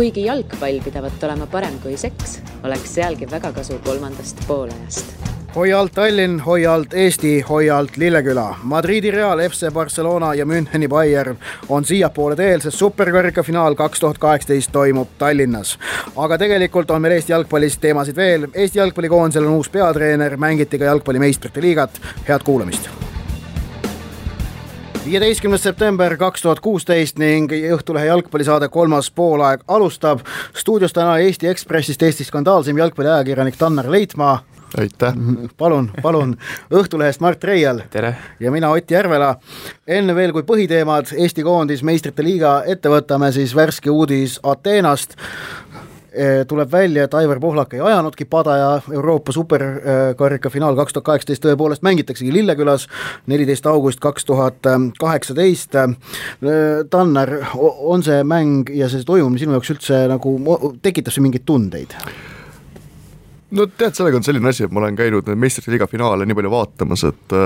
Kuigi jalgpall pidavat olema parem kui seks, oleks sealgi väga kasu kolmandast poolajast. Hoia alt Tallinn, hoia alt Eesti, hoia alt Lilleküla. Madridi Real, FC Barcelona ja Müncheni Bayern on siiapoole teel, sest superkarika finaal 2018 toimub Tallinnas. Aga tegelikult on meil Eesti jalgpallist teemasid veel. Eesti jalgpallikoondisel on uus peatreener, mängiti ka jalgpalli meistrite liigat. Head kuulamist! 15. september 2016 ning Õhtulehe jalgpallisaade kolmas poolaeg alustab. Stuudios täna Eesti Ekspressist Eesti skandaalsim jalgpalliajakirjanik Tanner Leitmaa. Aitäh. Palun. Õhtulehest Mart Reial. Tere. Ja mina Ott Järvela. Enne veel kui põhiteemad Eesti koondis meistrite liiga ette võtame, siis värske uudis Ateenast. Tuleb välja, et Aivar Pohlak ei ajanudki pada ja Euroopa superkarika finaal 2018 tõepoolest mängitaksegi Lillekülas 14. august 2018. Tanner, on see mäng ja see toimumine sinu jaoks üldse nagu tekitab see mingeid tundeid? No tead, sellega on selline asi, et ma olen käinud meistrite liiga finaale nii palju vaatamas, et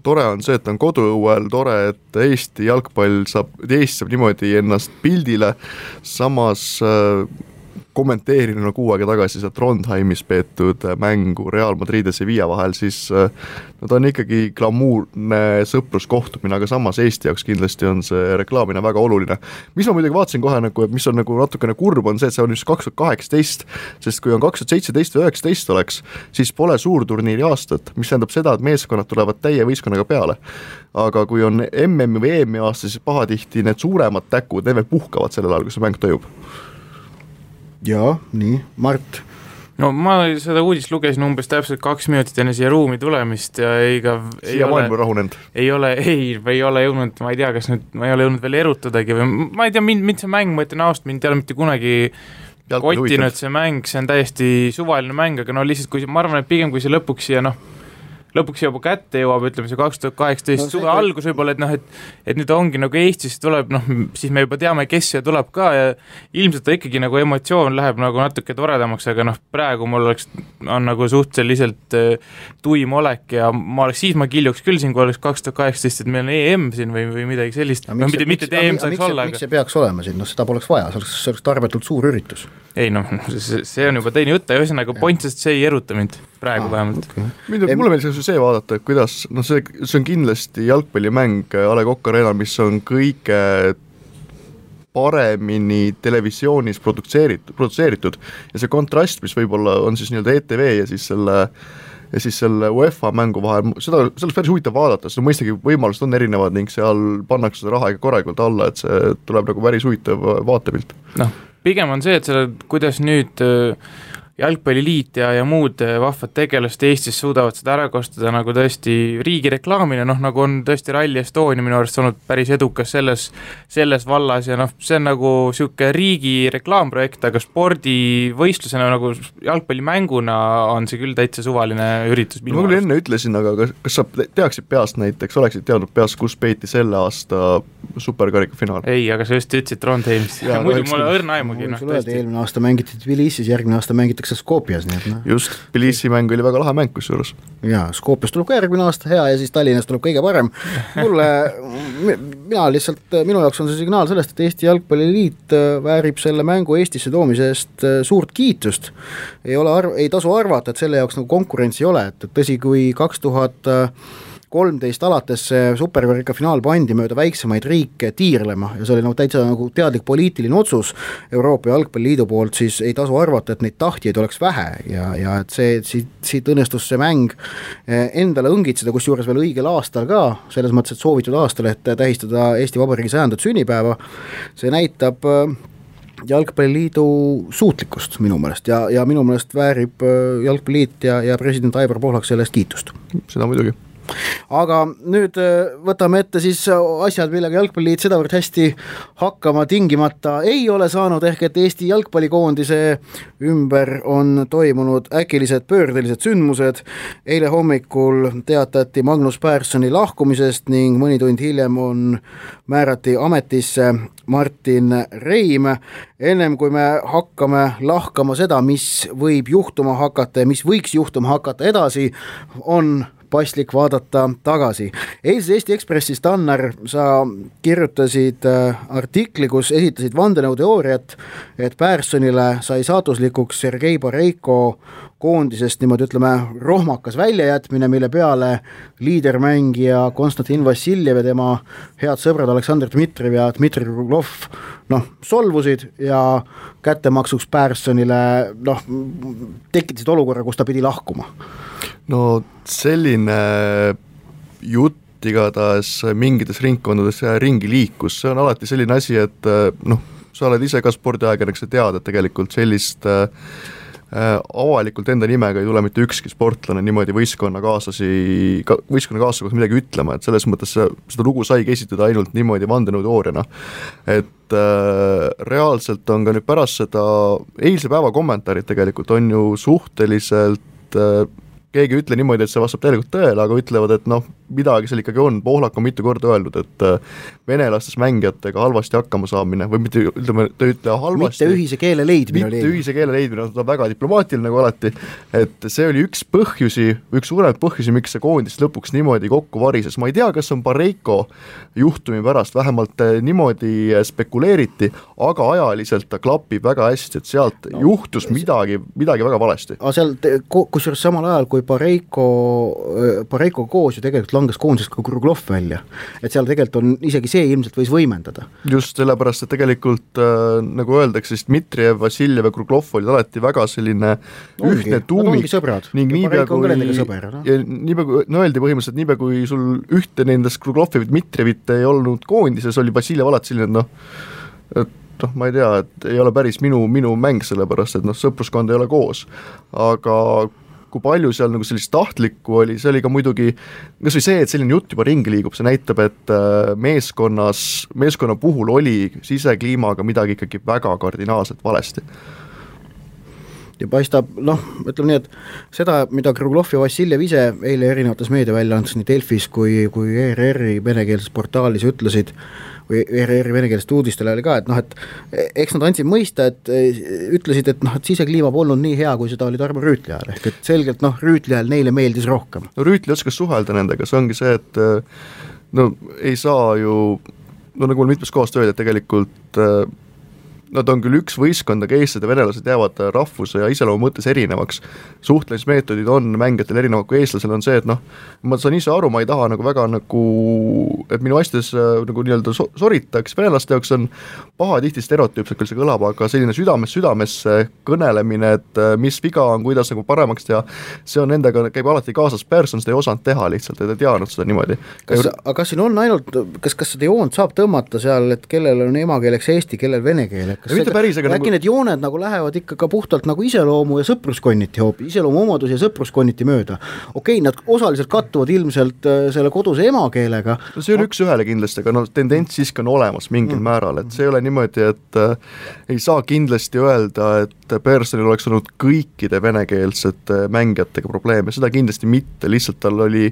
tore on see, et on koduõuel, tore, et Eesti jalgpall saab niimoodi ennast pildile, samas kommenteerin kuu aega tagasi seal Trondheimis peetud mängu Real Madrid ja Sevilla vahel, siis ta on ikkagi glamuurne sõpruskohtumine, aga samas Eesti jaoks kindlasti on see reklaamine väga oluline. Mis ma muidugi vaatasin kohe, et mis on natukene kurb, on see, et see on just 2018, sest kui on 2017 või 2019 oleks, siis pole suurturniiri aastat, mis tähendab seda, et meeskonnad tulevad täie võistkonnaga peale. Aga kui on MM või EM aasta, siis pahatihti need suuremad täkud, need veel puhkavad sellel ajal, kui see mäng toimub. Jaa, nii. Mart? No ma seda uudist lugesin umbes täpselt 2 minutit enne siia ruumi tulemist ja siia maailma rahunend. Ei ole jõudnud, ma ei tea, kas nüüd ma ei ole jõudnud veel erutadagi või ma ei tea, mind see mäng, ma ütlen aust, mind ei ole mitte kunagi kottinud see mäng, see on täiesti suvaline mäng, aga no lihtsalt ma arvan, et pigem kui see lõpuks juba kätte jõuab, ütleme see 2018 suve algus võib-olla, et nüüd ongi nagu Eestis tuleb, siis me juba teame, kes siia tuleb ka ja ilmselt ikkagi nagu emotsioon läheb nagu natuke toredamaks, aga praegu mul on nagu suhteliselt tuim olek ja siis ma kiljuks küll siin, kui oleks 2018, et meil on EM siin või midagi sellist. Mitte EM saaks olla. Miks see peaks olema siin? Seda poleks vaja, see oleks tarbetult suur üritus. Ei see on juba teine jutt ja ühesõnaga pointsest see ei eruta mind praegu vähemalt. Mulle meeldis see vaadata, kuidas see on kindlasti jalgpallimäng A. Le Coq Arena, mis on kõige paremini televisioonis produtseeritud ja see kontrast, mis võib-olla on siis nii-öelda ETV ja siis selle UEFA mängu vahel, seda oleks päris huvitav vaadata, sest mõistagi võimalused on erinevad ning seal pannakse seda raha ikka korralikult alla, et see tuleb nagu päris huvitav vaatepilt. Pigem on see, et kuidas nüüd jalgpalliliit ja muud vahvad tegelast Eestis suudavad seda ära kostada nagu tõesti riigi reklaamine, nagu on tõesti Rally Estonia minu arust olnud päris edukas selles vallas ja see on nagu siuke riigi reklaamprojekt, aga spordivõistlusena nagu jalgpallimänguna on see küll täitsa suvaline üritus. Ma küll enne ütlesin, aga kas sa teaksid peast näiteks, oleksid teadnud peast, kus peeti selle aasta superkarika finaal? Ei, aga sa just ütlesid Trondheimis. Muidu mulle õrna aimugi. Eelmine aasta mängiti Tbilisis, järgmine aasta mängitakse Skopjas. Just, Tbilisi mäng oli väga lahe mäng kusjuures. Jaa, Skopjas tuleb ka järgmine aasta hea ja siis Tallinnas tuleb kõige parem. Minu jaoks on see signaal sellest, et Eesti Jalgpalliliit väärib selle mängu Eestisse toomise eest suurt kiitust. Ei tasu arvata, et selle jaoks nagu konkurentsi ei ole, et tõsi, kui 2013 alates superkarika finaal pandi mööda väiksemaid riike tiirlema ja see oli täitsa nagu teadlik poliitiline otsus Euroopa Jalgpalliliidu poolt, siis ei tasu arvata, et neid tahtjaid oleks vähe ja et siit õnnestus see mäng endale õngitseda, kus juures veel õigel aastal ka, selles mõttes, et soovitud aastal, et tähistada Eesti Vabariigi 100. sünnipäeva. See näitab Jalgpalliliidu suutlikkust minu meelest ja minu meelest väärib Jalgpalliliit ja president Aivar Pohlak sellest kiitust. Seda muidugi. Aga nüüd võtame ette siis asjad, millega Jalgpalliliit sedavõrd hästi hakkama tingimata ei ole saanud, ehk et Eesti jalgpallikoondise ümber on toimunud äkilised pöördelised sündmused. Eile hommikul teatati Magnus Perssoni lahkumisest ning mõni tund hiljem määrati ametisse Martin Reim. Ennem kui me hakkame lahkama seda, mis võib juhtuma hakata ja mis võiks juhtuma hakata edasi, on paslik vaadata tagasi. Eilses Eesti Ekspressis, Tannar, sa kirjutasid artikli, kus esitasid vandenõuteooriat, et Pärssonile sai saatuslikuks Sergei Boreiko koondisest niimoodi ütleme rohmakas väljajätmine, mille peale liidermängija Konstantin Vassiljev ja tema head sõbrad Aleksandr Dmitrijev ja Dmitri Kruglov solvusid ja kättemaksuks Pärssonile tekitasid olukorra, kus ta pidi lahkuma. No selline jutt igatahes mingites ringkondades ringi liikus, see on alati selline asi, et sa oled ise ka spordiajakirjanik, sa tead, et tegelikult sellist avalikult enda nimega ei tule mitte ükski sportlane niimoodi võistkonnakaaslase kohta midagi ütlema, et selles mõttes seda lugu saigi esitada ainult niimoodi vandenõuteooriana. Et reaalselt on ka nüüd pärast seda eilse päeva kommentaarid tegelikult on ju suhteliselt keegi ei ütle niimoodi, et see vastab tegelikult tõele, aga ütlevad, et midagi seal ikkagi on. Pohlak on mitu korda öelnud, et venelastes mängijatega halvasti hakkama saamine või mitte, ütleme, ta ütle halvasti. Mitte ühise keele leidmine, ta on väga diplomaatiline nagu alati, et see oli üks suuremaid põhjusi, miks see koondis lõpuks niimoodi kokku varises. Ma ei tea, kas on Boreiko juhtumi pärast, vähemalt niimoodi spekuleeriti, aga ajaliselt ta klapib väga hästi, et sealt juhtus midagi väga valesti. Aga seal, kusjuures samal ajal, kui Boreiko koos ju tegelikult langes koondisest ka Kruglov välja, et seal tegelikult on isegi see ilmselt võis võimendada. Just sellepärast, et tegelikult nagu öeldakse, siis Dmitrijev, Vassiljev ja Kruglov olid alati väga selline ühtne tuumik ning niipea kui öeldi põhimõtteliselt, niipea kui sul ühte nendest Kruglovi või Dmitrijevit ei olnud koondises, oli Vassiljev alati selline, et ma ei tea, et ei ole päris minu mäng, sellepärast, et sõpruskond ei ole koos, aga kui palju seal nagu sellist tahtlikku oli, see oli ka muidugi, kas või see, et selline jutt juba ringi liigub, see näitab, et meeskonna puhul oli sisekliimaga midagi ikkagi väga kardinaalselt valesti. Ja paistab, ütleme nii, et seda, mida Kruglov ja Vassiljev ise eile erinevates meediaväljaandes nii Delfis kui ERR-i venekeelses portaalis ütlesid, või ERR-i venekeelsest uudistele oli ka, et eks nad andsid mõista, et ütlesid, et sisekliima polnud nii hea, kui seda oli Tarmo Rüütli ajal, ehk et selgelt Rüütli ajal neile meeldis rohkem. Rüütli oskas suhelda nendega, see ongi see, et ei saa ju, nagu mul mitmes kohast öeldi, et tegelikult nad on küll üks võistkond, aga eestlased ja venelased jäävad rahvuse ja iseloomu mõttes erinevaks. Suhtlemismeetodid on mängijatel erinevad kui eestlasel on see, et ma saan ise aru, ma ei taha väga et minu asjades nagu nii-öelda soritaks, venelaste jaoks on paha tihti stereotüüpselt küll see kõlab, aga selline südamesse kõnelemine, et mis viga on, kuidas nagu paremaks teha, see on nendega, käib alati kaasas. Persson seda ei osanud teha lihtsalt, et ei teadnud seda niimoodi. Aga siin on ainult, kas seda joont saab tõmmata seal, et kellel on emakeeleks eesti, kellel vene keel? Äkki need jooned nagu lähevad ikka ka puhtalt nagu iseloomu ja sõpruskonniti iseloomu omadus ja sõpruskonniti mööda. Okei, nad osaliselt kattuvad ilmselt selle koduse emakeelega. See on üks ühele kindlasti, aga tendents siiski on olemas mingil määral, et see ei ole niimoodi, et ei saa kindlasti öelda, et Perssonil oleks olnud kõikide venekeelsete mängijatega probleeme, seda kindlasti mitte, lihtsalt tal oli,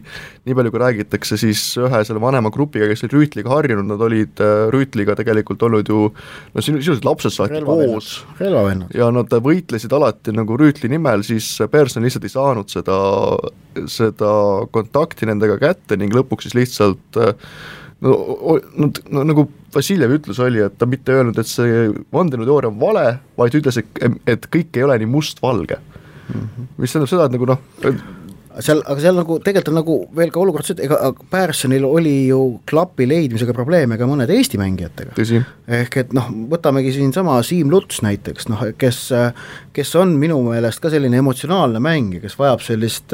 nii palju kui räägitakse, siis ühe selle vanema grupiga, kes oli Rüütliga harjunud, nad olid Rüütliga tegelikult olnud ju, sisuliselt lapsed saati koos ja nad võitlesid alati nagu Rüütli nimel, siis Persson lihtsalt ei saanud seda kontakti nendega kätte ning lõpuks siis lihtsalt nagu Vassiljev ütlus oli, et ta mitte öelnud, et see vandenõuteooria on vale, vaid ütles, et kõik ei ole nii must-valge. Mis tähendab seda, et nagu aga seal nagu tegelikult on nagu veel ka olukord see, et ega Perssonil oli ju klapi leidmisega probleeme ka mõned Eesti mängijatega. Tõsi. Ehk et võtamegi siin sama Siim Luts näiteks, kes on minu meelest ka selline emotsionaalne mängija, kes vajab sellist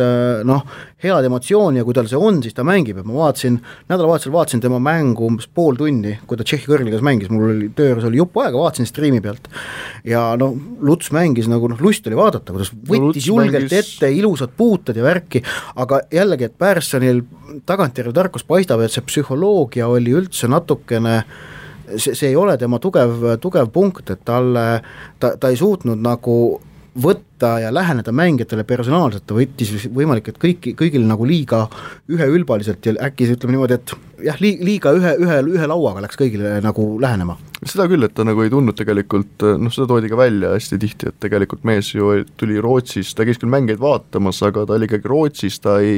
head emotsiooni ja kui tal see on, siis ta mängib, et ma nädalavahetusel vaatasin tema mängu umbes pool tundi, kui ta Tšehhi kõrgligas mängis, mul oli tööres oli jupp aega, vaatasin striimi pealt ja Luts mängis nagu lust oli vaadata, kuidas võttis julgelt ette ilusad puutad ja värki, aga jällegi, et Perssonil tagantjärele tarkus paistab, et see psühholoogia oli üldse natukene, see ei ole tema tugev punkt, et ta ei suutnud nagu võtta ja läheneda mängijatele personaalselt, ta võttis võimalik, et kõigil nagu liiga üheülbaliselt ja äkki ütleme niimoodi, et jah, liiga ühe lauaga läks kõigile nagu lähenema. Seda küll, et ta nagu ei tundnud tegelikult, seda toodi ka välja hästi tihti, et tegelikult mees ju tuli Rootsist, ta käis küll mängeid vaatamas, aga ta oli ikkagi Rootsis, ta ei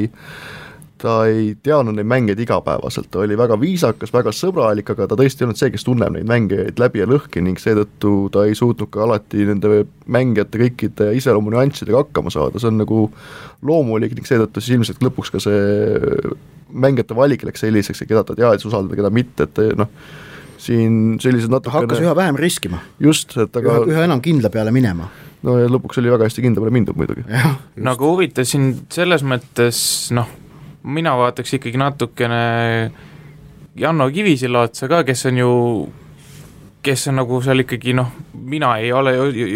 ta ei teadnud neid mängeid igapäevaselt, ta oli väga viisakas, väga sõbralik, aga ta tõesti ei olnud see, kes tunneb neid mängijaid läbi ja lõhki ning seetõttu ta ei suutnud ka alati nende mängijate kõikide iseloomu nüanssidega hakkama saada, see on nagu loomulik ning seetõttu siis ilmselt lõpuks ka see mängijate valik läks selliseks, keda ta teadis usaldada, keda mitte, et noh, siin sellised natukene hakkas üha vähem riskima. Just, et aga üha enam kindla peale minema. No ja lõpuks oli väga hästi kindla peale mindud muidugi. Nagu huvitav siin selles mõttes, noh, mina vaataks ikkagi natukene Janno Kivisilla otsa ka, kes on nagu seal ikkagi, noh, mina ei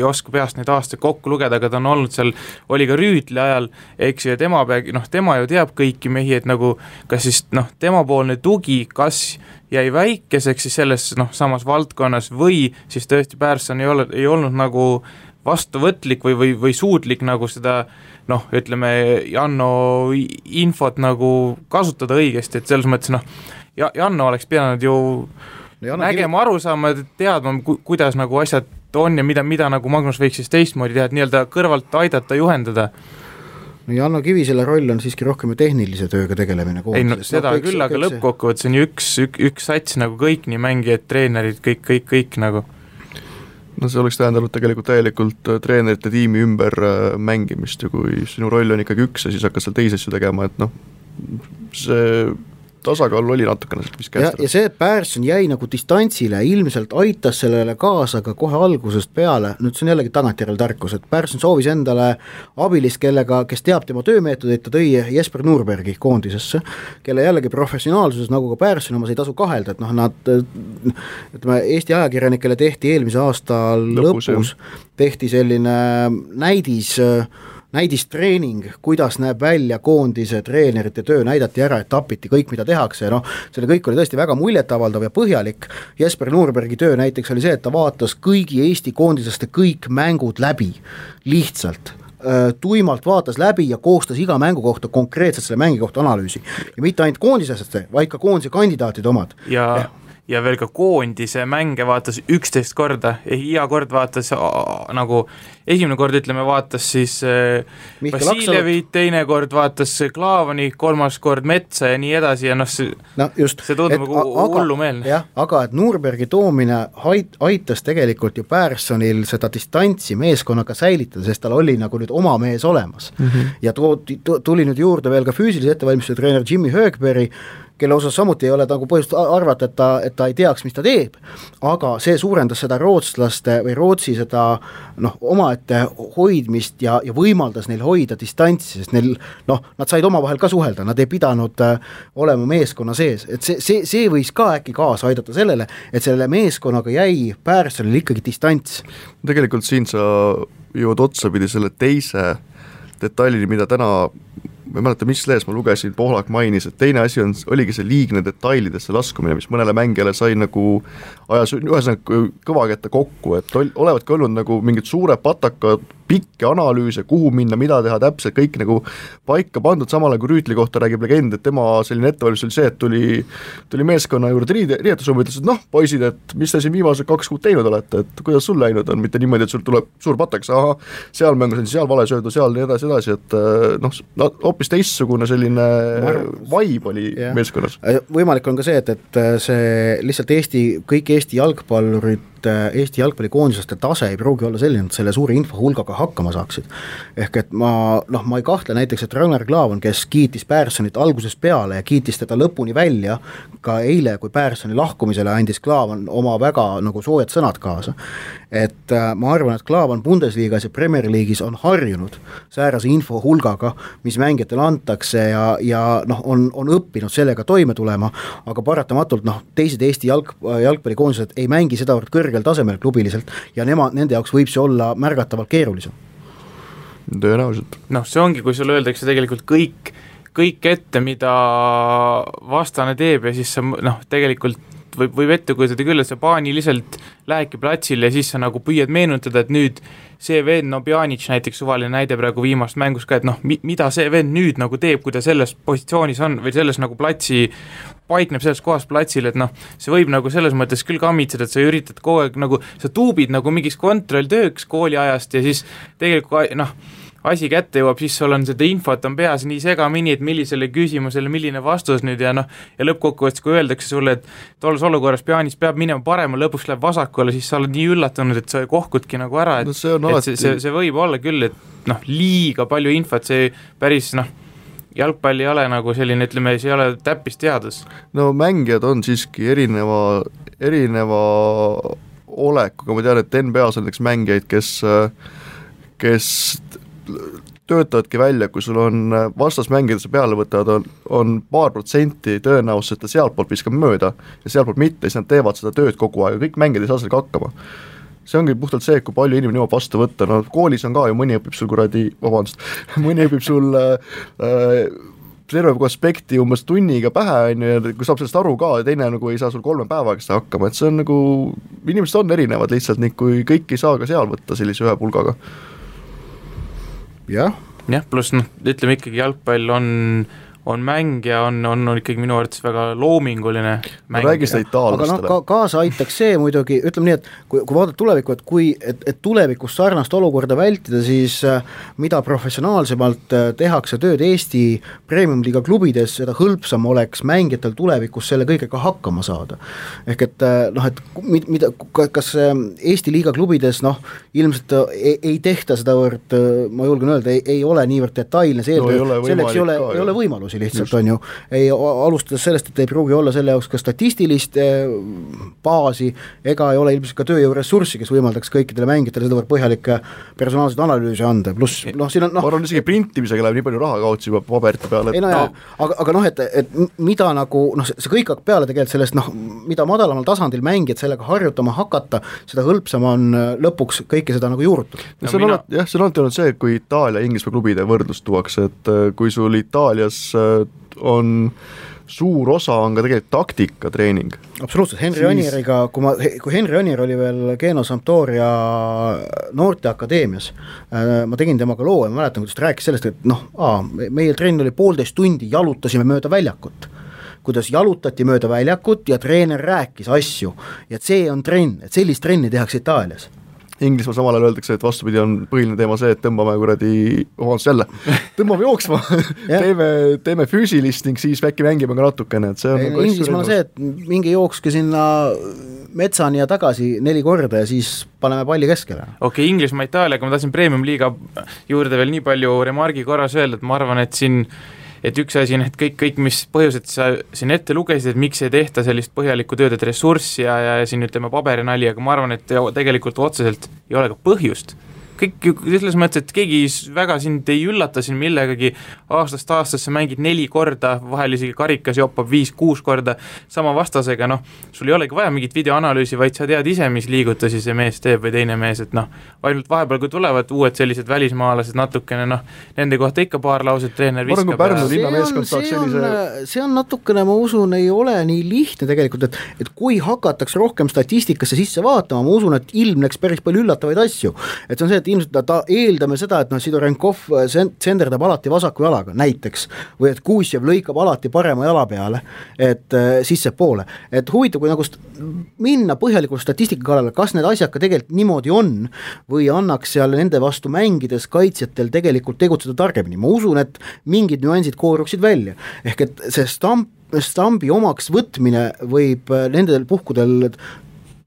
oska peast neid aastaid kokku lugeda, aga ta on olnud seal, oli ka Rüütli ajal, eks ju, ja tema ju teab kõiki mehi, et nagu, kas siis, noh, temapoolne tugi, kas jäi väikeseks siis selles, noh, samas valdkonnas või siis tõesti Persson ei olnud nagu vastuvõtlik või suutlik nagu seda, noh, ütleme, Janno infot nagu kasutada õigesti, et selles mõttes, noh, Janno oleks pidanud ju nägema, aru saama, teadma, kuidas nagu asjad on ja mida nagu Magnus võiks siis teistmoodi teha, et nii-öelda kõrvalt aidata, juhendada. No Janno Kivisella roll on siiski rohkem ju tehnilise tööga tegelemine. Ei, no seda küll, aga lõppkokkuvõttes on ju üks sats nagu kõik, nii mängijad, treenerid, kõik nagu. No see oleks tähendanud tegelikult täielikult treenerite tiimi ümber mängimist ja kui sinu roll on ikkagi üks ja siis hakkad seal teisi asju tegema, et noh, see tasakaal oli natukene mis kästada. Ja see, et Persson jäi nagu distantsile, ilmselt aitas sellele kaasa ka kohe algusest peale, nüüd see on jällegi tagantjärel tarkus, et Persson soovis endale abilist, kes teab tema töömeetodeid, ta tõi Jesper Nurbergi koondisesse, kelle jällegi professionaalsuses, nagu ka Persson omas ei tasu kahelda, et noh, nad, ütleme, Eesti ajakirjanikele tehti eelmise aasta lõpus tehti selline näidistreening, kuidas näeb välja koondise treenerite töö, näidati ära, et tapiti kõik, mida tehakse ja noh, selle kõik oli tõesti väga muljetavaldav ja põhjalik. Jesper Nurbergi töö näiteks oli see, et ta vaatas kõigi Eesti koondisaste kõik mängud läbi, lihtsalt tuimalt vaatas läbi ja koostas iga mängu kohta konkreetselt selle mängi kohta analüüsi. Ja mitte ainult koondiseste, vaid ka koondise kandidaatide omad. Ja veel ka koondise mänge vaatas 11 korda, iga kord vaatas nagu, esimene kord ütleme vaatas siis Vasiljevit, teine kord vaatas Klaavani, kolmas kord Metsa ja nii edasi ja noh, see tundub nagu hullumeelne. Jah, aga et Nurbergi toomine aitas tegelikult ju Perssonil seda distantsi meeskonnaga säilitada, sest tal oli nagu nüüd oma mees olemas. Ja tuli nüüd juurde veel ka füüsilise ettevalmistuse treener Jimmy Högberg, kelle osas samuti ei ole nagu põhjust arvata, et ta ei teaks, mis ta teeb, aga see suurendas seda rootslaste või Rootsi seda omaette hoidmist ja võimaldas neil hoida distantsi, sest neil, nad said omavahel ka suhelda, nad ei pidanud olema meeskonna sees, et see võis ka äkki kaasa aidata sellele, et selle meeskonnaga jäi Perssonil ikkagi distants. Tegelikult siin sa jõud otsapidi selle teise detailini, mida täna ma ei mäleta, mis lees ma lugesin, Pohlak mainis, et teine asi oligi see liigne detailidesse laskumine, mis mõnele mängijale sai nagu ajas ühesõnaga kõvakätte kokku, et olevatki olnud nagu mingid suured patakad, pikki analüüse, kuhu minna, mida teha täpselt, kõik nagu paika pandud, samale kui Rüütli kohta räägib legend, et tema selline ettevalmistus oli see, et tuli meeskonna juurde riietusruumi, ütles, et noh, poisid, et mis te siin viimased 2 kuud teinud olete, et kuidas sul läinud on, mitte niimoodi, et sul tuleb suur patak, seal mängus on seal vale söödu, seal nii edasi, et hoopis teistsugune selline vibe oli meeskonnas. Võimalik on ka see, et see lihtsalt kõik Eesti jalgpallurid, Eesti jalgpallikoondisaste tase ei pruugi olla selline, et selle suure infohulgaga hakkama saaksid. Ehk et ma ei kahtle näiteks, et Ragnar Klavan, kes kiitis Perssonit algusest peale ja kiitis teda lõpuni välja, ka eile, kui Perssoni lahkumisele andis Klavan oma väga nagu soojad sõnad kaasa. Et ma arvan, et Klavan Bundesliigas ja Premier League'is on harjunud säärase infohulgaga, mis mängijatele antakse ja on õppinud sellega toime tulema, aga paratamatult teised Eesti jalgpallikoondised ei mängi seda kõrgel tasemel klubiliselt ja nende jaoks võib see olla märgatavalt keerulisem. Tõenäoliselt. See ongi, kui sulle öeldakse tegelikult kõik ette, mida vastane teeb ja siis sa tegelikult võib ette kujutada küll, et sa paaniliselt lähedki platsile ja siis sa nagu püüad meenutada, et nüüd see vend, Pjanic näiteks suvaline näide praegu viimast mängus ka, et mida see vend nüüd nagu teeb, kui ta selles positsioonis on või selles nagu paikneb selles kohas platsil, et see võib nagu selles mõttes küll kammitseda, et sa üritad kogu aeg nagu, sa tuubid nagu mingis kontrolltööks kooliajast ja siis tegelikult asi kätte jõuab, siis sul on seda infot on peas nii segamini, et millisele küsimusele milline vastus nüüd ja ja lõppkokkuvõttes, kui öeldakse sulle, et tolles olukorras Pjanic peab minema parema, lõpuks läheb vasakule, siis sa oled nii üllatunud, et sa kohkudki nagu ära, et, see võib olla küll, et liiga palju infot, see päris jalgpall ei ole nagu selline, ütleme, see ei ole täppisteadus. No mängijad on siiski erineva olekuga, ma tean, et NBA-s on näiteks mängijaid, kes töötavadki välja, kui sul on vastasmängijad, sa peale võtavad, on paar protsenti tõenäosus, et ta sealtpoolt viskab mööda ja sealtpoolt mitte, siis nad teevad seda tööd kogu aeg, kõik mängijad ei saa sellega hakkama. See ongi puhtalt see, kui palju inimene jõuab vastu võtta, koolis on ka ju, mõni õpib sul mõni õpib sul terve aspekti umbes tunniga pähe, ja kui saab sellest aru ka, ja teine ei saa sul 3 päevaga seda hakkama, et see on inimesed on erinevad lihtsalt, nii kui kõik ei saa ka seal võtta sellise ühe pulgaga. Jah, pluss ütleme ikkagi jalgpall on mäng ja on ikkagi minu arvates väga loominguline mäng. Räägi seda itaallastele. Aga kaasa aitaks see muidugi, ütleme nii, et kui vaadata tulevikku, et tulevikus sarnast olukorda vältida, siis mida professionaalsemalt tehakse tööd Eesti premium-liiga klubides, seda hõlpsam oleks mängijatel tulevikus selle kõigega hakkama saada. Ehk et kas Eesti liiga klubides ilmselt ei tehta seda võrd, ma julgen öelda, ei ole niivõrd detailne see selleks ei ole võimalusi lihtsalt on ju, ei alustades sellest, et ei pruugi olla selle jaoks ka statistilist baasi, ega ei ole ilmselt ka tööjõuressurssi, kes võimaldaks kõikidele mängijatele seda põhjalikke personaalseid analüüse anda, pluss siin on ma arvan, isegi printimisega läheb nii palju raha kaotsi juba paberite peale. Aga et mida see kõik hakkab peale tegelikult sellest, mida madalamal tasandil mängijad sellega harjutama hakata, seda hõlpsam on lõpuks kõike seda juurutada. See on alati olnud see, kui Itaalia ja Inglismaa klubide võrdlust tuuakse, et kui sul Itaalias on suur osa on ka tegelikult taktikatreening. Absoluutselt, Henri Anieriga, kui Henri Anier oli veel Geno Sampdoria noorteakadeemias, ma tegin temaga loo ja ma mäletan, kuidas ta rääkis sellest, et meie trenn oli 1,5 tundi, jalutasime mööda väljakut, kuidas jalutati mööda väljakut ja treener rääkis asju ja see on trenn, et sellist trenni tehakse Itaalias. Inglismaa samal ajal öeldakse, et vastupidi on põhiline teema see, et tõmbame jooksma teeme füüsilist ning siis äkki mängime ka natukene, et see on Inglismaa on see, et mingi jookske sinna metsani ja tagasi 4 korda ja siis paneme palli keskele. Okei, Inglismaa, Itaaliaga ma tahtsin premium-liiga juurde veel nii palju remargi korras öelda, et ma arvan, et üks asi on, et kõik mis põhjused sa siin ette lugesid, et miks ei tehta sellist põhjalikku tööd, et ressurssi ja siin ütleme paberinali, aga ma arvan, et tegelikult otseselt ei ole ka põhjust. Kõik selles mõttes, et keegi väga sind ei üllata siin millegagi, aastast aastasse mängid 4 korda, vahel isegi karikas joppab 5-6 korda sama vastasega, sul ei olegi vaja mingit videoanalüüsi, vaid sa tead ise, mis liigutusi see mees teeb või teine mees, et ainult vahepeal, kui tulevad uued sellised välismaalased natukene, nende kohta ikka paar lauset treener viskab. See on natukene, ma usun, ei ole nii lihtne tegelikult, et kui hakatakse rohkem statistikasse sisse vaatama, ma usun, et ilmneks päris palju üllatavaid asju, et see on see, et ilmselt eeldame seda, et Sidorenkov senderdab alati vasaku jalaga näiteks, või et Kuusjev lõikab alati parema jala peale, et sisse poole, et huvitav, kui minna põhjalikult statistika kallale, kas need asjad ka tegelikult niimoodi on, või annaks seal nende vastu mängides kaitsjatel tegelikult tegutseda targemini, ma usun, et mingid nüansid kooruksid välja, ehk et see stambi omaks võtmine võib nendel puhkudel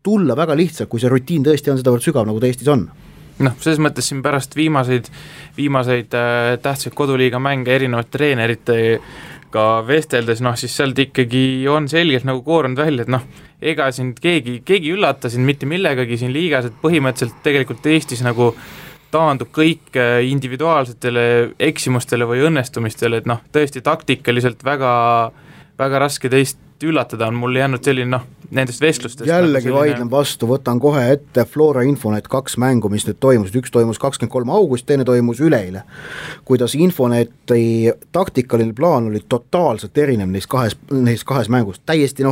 tulla väga lihtsalt, kui see rutiin tõesti on sedavõrd sügav, nagu ta Eestis on. Selles mõttes siin pärast viimaseid tähtsaid koduliiga mänge erinevate treeneritega vesteldes, siis sealt ikkagi on selgelt koorunud välja, et ega siin keegi üllata siin mitte millegagi siin liigas, et põhimõtteliselt tegelikult Eestis taandub kõik individuaalsetele eksimustele või õnnestumistele, et tõesti taktikaliselt väga, väga raske teist üllatada on mul jäänud selline nendest vestlustest. Jällegi vaidlen vastu, võtan kohe ette Flora Infonet 2 mängu, mis nüüd toimus, üks toimus 23. august, teine toimus üleeile. Kuidas Infoneti taktikaline plaan oli totaalselt erinev neis kahes mängust, täiesti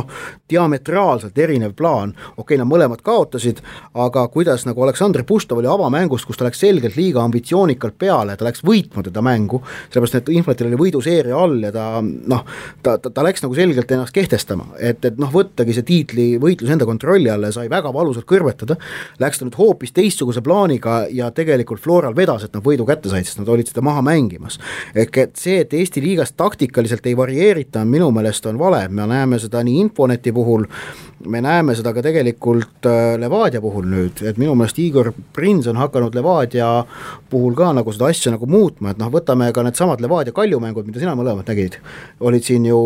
diametraalselt erinev plaan, nad mõlemad kaotasid, aga kuidas Aleksandr Puštov oli avamängust, kus ta läks selgelt liiga ambitsioonikalt peale, ta läks võitma teda mängu, sellepärast et Infonetil oli võiduseeria all ja ta läks selgelt ennast kehtestama katkestama, et noh, võttagi see tiitlivõitlus enda kontrolli alla ja sai väga valusalt kõrvetada, läks ta nüüd hoopis teistsuguse plaaniga ja tegelikult Floral vedas, et nad võidu kätte said, sest nad olid seda maha mängimas. Ehk et see, et Eesti liigas taktikaliselt ei varieerita, minu meelest on vale, me näeme seda nii Infoneti puhul, me näeme seda ka tegelikult Levadia puhul nüüd, et minu meelest Igor Prins on hakanud Levadia puhul ka nagu seda asja nagu muutma, et noh, võtame ka need samad Levadia Kaljumängud, mida sina mõlemad nägid, olid siin ju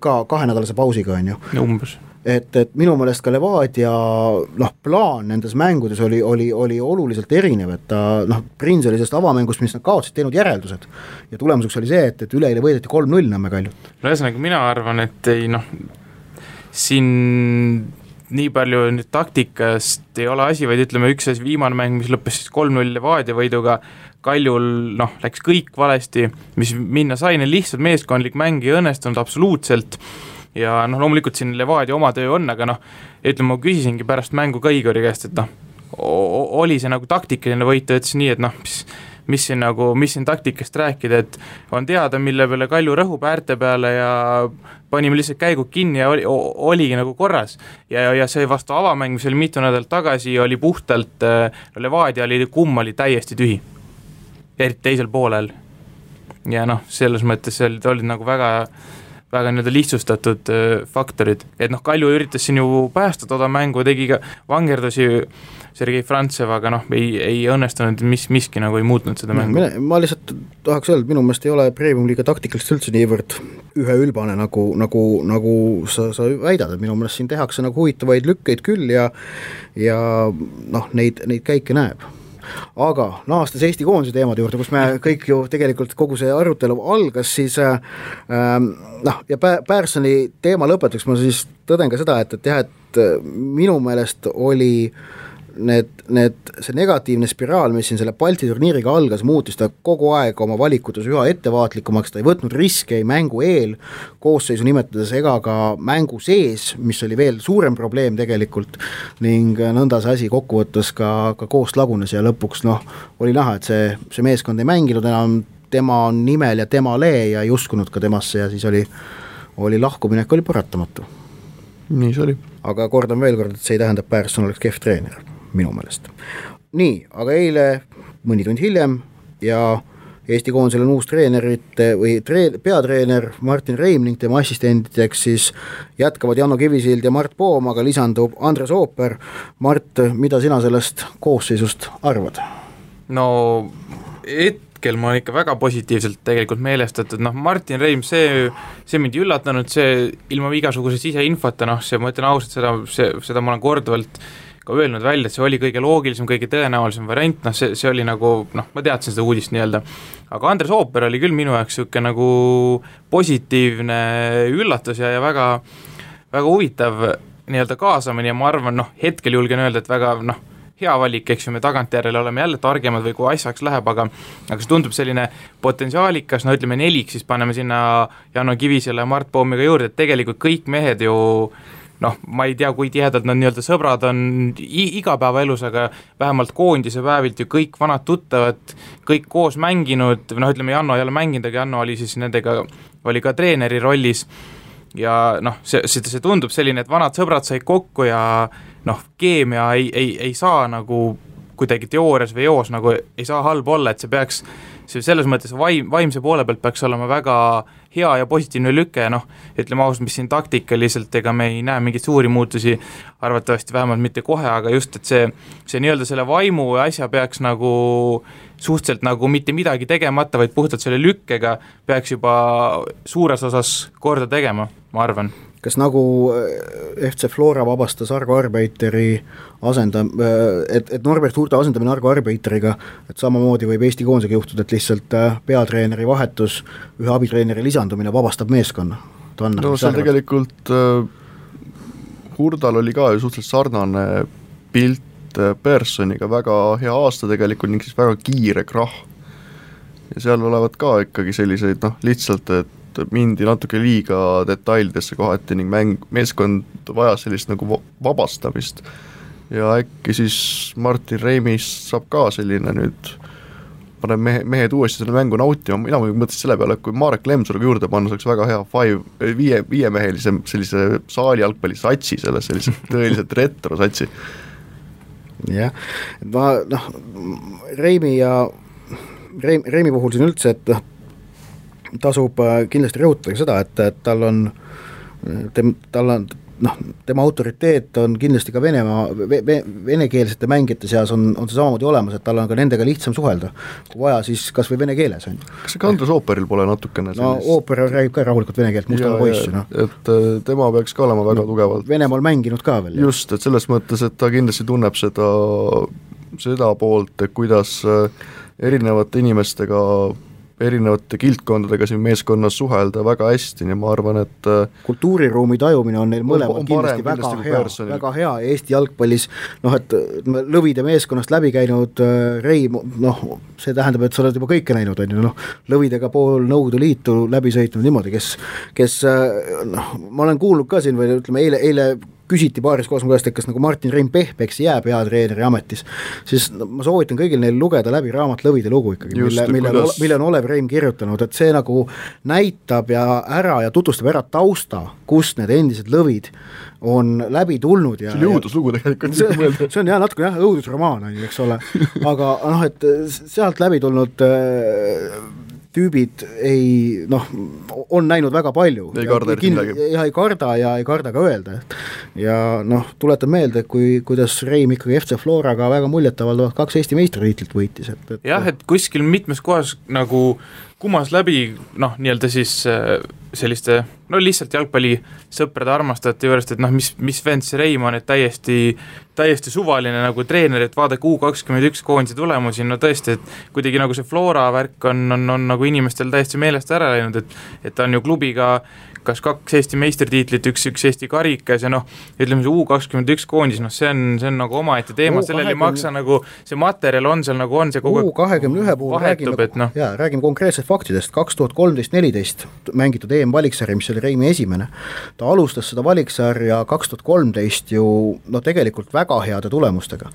ka 2-nädalase pausiga, on ju. Umbes. Et minu meelest ka Levadia plaan nendes mängudes oli oluliselt erinev, et ta Prins oli sellest avamängust, mis nad kaotsid, teinud järeldused ja tulemuseks oli see, et üleeile võideti 3-0 Nõmme Kaljut. No ühesõnaga mina arvan, et ei siin nii palju nüüd taktikast ei ole asi, vaid ütleme üks viimane mäng, mis lõppes siis 3-0 Levadia võiduga, Kaljul läks kõik valesti, mis minna sai, lihtsalt meeskondlik mäng ei õnnestunud absoluutselt ja loomulikult siin Levadia oma töö on, aga ütleme, ma küsisingi pärast mängu ka Igori käest, et oli see nagu taktikaline võit, ütles nii, et mis siin taktikast rääkida, et on teada, mille peale Kalju rõhub äärte peale ja panime lihtsalt käigud kinni ja oligi nagu korras. Ja see vastu avamäng, mis oli mitu nädalat tagasi, oli puhtalt, Levadia kumm oli täiesti tühi, eriti teisel poolel. Ja selles mõttes olid nagu väga nii-öelda lihtsustatud faktorid, et Kalju üritas siin ju päästa toda mängu, tegi ka vangerdusi Sergei Frantsev, aga ei õnnestunud, miski nagu ei muutnud seda mängu. Ma lihtsalt tahaks öelda, minu meelest ei ole Premium-liiga taktikalist üldse niivõrd üheülbane, nagu sa väidad, et minu meelest siin tehakse nagu huvitavaid lükkeid küll ja neid käike näeb. Aga naastes Eesti koondise teemade juurde, kus me kõik ju tegelikult kogu see arutelu algas, siis ja Pärsoni teema lõpetuseks ma siis tõden ka seda, et minu meelest oli see negatiivne spiraal, mis siin selle Balti turniiriga algas, muutis ta kogu aeg oma valikutes üha ettevaatlikumaks, ta ei võtnud riske ei mängu eel, koosseisu nimetades ega ka mängu sees, mis oli veel suurem probleem tegelikult, ning nõnda see asi kokkuvõttes ka koost lagunes ja lõpuks oli näha, et see meeskond ei mänginud enam tema nimel ja tema lee ja ei uskunud ka temasse ja siis oli lahkuminek oli paratamatu. Nii see oli. Aga kordan veel kord, et see ei tähenda, et Pärsson oleks kehv treener minu meelest. Nii, aga eile mõni tund hiljem ja Eesti koondisel on uus treenerite või peatreener Martin Reim ning tema assistendideks siis jätkavad Janno Kivisild ja Mart Poom, aga lisandub Andres Ooper. Mart, mida sina sellest koosseisust arvad? No hetkel ma olen ikka väga positiivselt tegelikult meelestatud, Martin Reim, see mind üllatanud, see ilma igasuguse siseinfota, see ma ütlen ausalt, seda ma olen korduvalt ka öelnud välja, et see oli kõige loogilisem, kõige tõenäolisem variant, see oli nagu, ma teadsin seda uudist nii-öelda, aga Andres Ooper oli küll minu jaoks siuke nagu positiivne üllatus ja väga, väga huvitav nii-öelda kaasamine ja ma arvan, hetkel julgen öelda, et väga, hea valik, eks ju, me tagantjärele oleme jälle targemad või kui asjaks läheb, aga see tundub selline potentsiaalikas, ütleme 4, siis paneme sinna Janno Kivisele ja Mart Poomiga juurde, et tegelikult kõik mehed ju ma ei tea, kui tihedalt nad nii-öelda sõbrad on igapäevaelus, aga vähemalt koondise päevilt ju kõik vanad tuttavad, kõik koos mänginud, ütleme Janno ei ole mänginud, aga Janno oli siis nendega, oli ka treeneri rollis ja see tundub selline, et vanad sõbrad said kokku ja keemia ei saa nagu kuidagi teoorias või joos nagu ei saa halb olla, et see peaks selles mõttes vaimse poole pealt peaks olema väga hea ja positiivne lüke, ütleme ausalt, mis siin taktikaliselt, ega me ei näe mingeid suuri muutusi, arvatavasti vähemalt mitte kohe, aga just, et see nii-öelda selle vaimu asja peaks nagu suhteliselt nagu mitte midagi tegemata, vaid puhtalt selle lükkega peaks juba suures osas korda tegema, ma arvan. Kas nagu FC Flora vabastas Argo Arbeiteri et Norbert Hurta asendamine Argo Arbeiteriga, et samamoodi võib Eesti koondisega juhtuda, et lihtsalt peatreeneri vahetus, ühe abitreeneri lisandumine vabastab meeskonna? No see tegelikult Hurdal oli ka ju suhteliselt sarnane pilt Perssoniga, väga hea aasta tegelikult ning siis väga kiire krahh. Ja seal olevat ka ikkagi selliseid lihtsalt, et mindi natuke liiga detailidesse kohati ning meeskond vajas sellist nagu vabastamist ja äkki siis Martin Reimist saab ka selline nüüd paneb mehed uuesti selle mängu nautima, mina mõtlesin selle peale, et kui Marek Lemsaluga juurde panna, see oleks väga hea viiemehelise sellise saali jalgpalli satsi, sellise tõeliselt retro satsi. Jah, ma Reimi puhul siin üldse, et tasub kindlasti rõhutada seda, et tal on tema autoriteet on kindlasti ka venekeelsete mängijate seas on see samamoodi olemas, et tal on ka nendega lihtsam suhelda, kui vaja, siis kas või vene keeles on. Kas see ka Andres Ooperil pole natukene sellist? Ooper räägib ka rahulikult vene keelt, mustala poissi. Et tema peaks ka olema väga tugevalt. Venemaal mänginud ka veel. Just, et selles mõttes, et ta kindlasti tunneb seda poolt, et kuidas erinevate inimestega erinevate kildkondadega siin meeskonnas suhelda väga hästi, nii ma arvan, et kultuuriruumi tajumine on neil mõlemad kindlasti väga hea Eesti jalgpallis, et Lõvide meeskonnast läbi käinud Reim, see tähendab, et sa oled juba kõike näinud, Lõvidega pool Nõukogude Liitu läbi sõitnud niimoodi, kes ma olen kuulnud ka siin või ütleme, eile küsiti paaris kohas käest, et kas nagu Martin Reim Pehpeks jääb peatreeneri ametis, siis ma soovitan kõigil neil lugeda läbi raamat Lõvide lugu ikkagi, mille on Olev Reim kirjutanud, et see nagu näitab ja tutvustab ära tausta, kust need endised Lõvid on läbi tulnud. See oli õuduslugu tegelikult. See on natuke õudusromaan, eks ole, aga et sealt läbi tulnud tüübid on näinud väga palju. Ei karda ei karda ka öelda. Ja tuletan meelde, kuidas Reim ikkagi FC Floraga väga muljetavaldavalt 2 Eesti meistritiitlit võitis. Jah, et kuskil mitmes kohas nagu kumas läbi, nii-öelda siis selliste, lihtsalt jalgpallisõprade armastajate juurest, et mis vend see Reim on, et täiesti suvaline nagu treener, et vaadake U21 koondise tulemusi, tõesti, et kuidagi nagu see Flora värk on nagu inimestel täiesti meelest ära läinud, et ta on ju klubiga kas 2 Eesti meistritiitlit, üks Eesti karikas ja ütleme see U21 koondis, see on nagu omaette teema, sellel ei maksa nagu, see materjal on seal nagu on, see kogu U21 puhul räägime konkreetselt faktidest, 2013-14 mängitud EM-valiksarja, mis oli Reimi esimene, ta alustas seda valiksarja 2013 ju tegelikult väga heade tulemustega.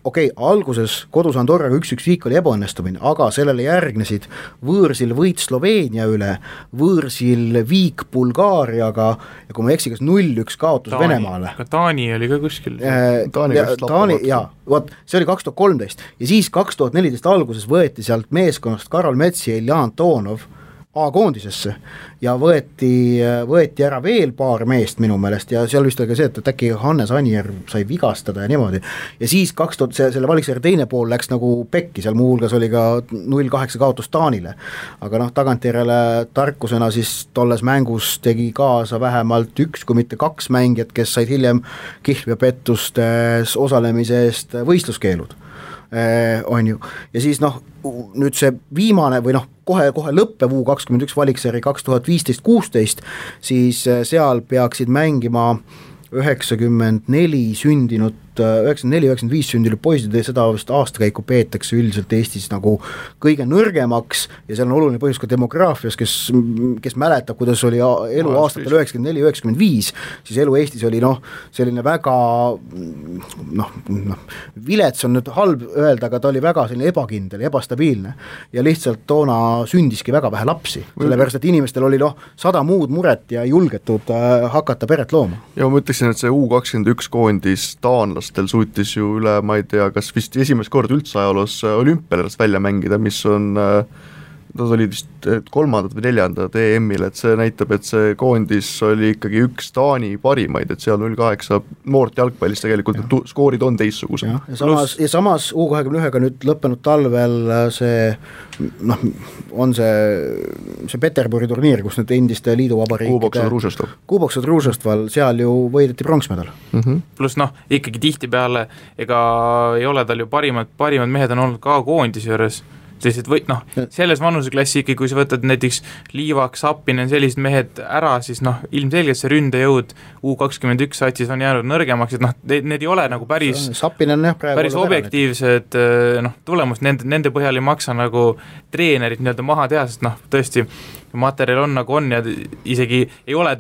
Alguses kodus Andorraga 1-1 viik oli ebaõnnestumine, aga sellele järgnesid võõrsil võit Sloveenia üle, võõrsil viik Bulgaariaga ja kui ma eksi, kas 0-1 kaotus Venemaale. Taani oli ka kuskil. Taani, see oli 2013 ja siis 2014 alguses võeti sealt meeskonnast Karol Metsi ja Ilja Antonov A-koondisesse ja võeti ära veel paar meest minu meelest ja seal vist oli ka see, et äkki Hannes Anier sai vigastada ja niimoodi. Ja siis selle valiksarja teine pool läks nagu pekki, seal muu hulgas oli ka 0-8 kaotus Taanile. Aga tagantjärele tarkusena siis tolles mängus tegi kaasa vähemalt 1 kui mitte 2 mängijat, kes said hiljem kihlveopettustes osalemise eest võistluskeelud. On ju. Ja siis nüüd see viimane või kohe lõppev U21 valiksari 2015-16, siis seal peaksid mängima 94 sündinud 94-95 sündinud poisid ja seda vist aastakäiku peetakse üldiselt Eestis nagu kõige nõrgemaks ja seal on oluline põhjus ka demograafias, kes mäletab, kuidas oli elu aastatel 94-95, siis elu Eestis oli selline väga vilets on nüüd halb öelda, aga ta oli väga selline ebakindel, ebastabiilne ja lihtsalt toona sündiski väga vähe lapsi, sellepärast et inimestel oli 100 muud muret ja ei julgetud hakata peret looma. Ja ma ütleksin, et see U21 koondis taanlastel suutis ju üle, ma ei tea, kas vist esimest kord üldse ajaloos olümpialast välja mängida, mis on, nad olid vist 3. või 4. EM-il, et see näitab, et see koondis oli ikkagi üks Taani parimaid, et seal 0-8 noort jalgpallis tegelikult skoorid on teissugused. Ja samas U21-ga nüüd lõppenud talvel see on see Peterburi turniir, kus nüüd endiste liiduvabariikide Kuboksod Ružestval, seal ju võideti pronksmedal. Plus ikkagi tihtipeale ega ei ole tal ju parimad mehed on olnud ka koondise juures, selles vanuseklassi ikkagi, kui sa võtad näiteks Liivak, Sappinen, sellised mehed ära, siis ilmselgelt see ründejõud U21 satsis on jäänud nõrgemaks, et need ei ole nagu päris objektiivsed tulemust, nende põhjal ei maksa nagu treenerit nii-öelda maha teha, sest tõesti materjal on nagu on ja isegi ei ole,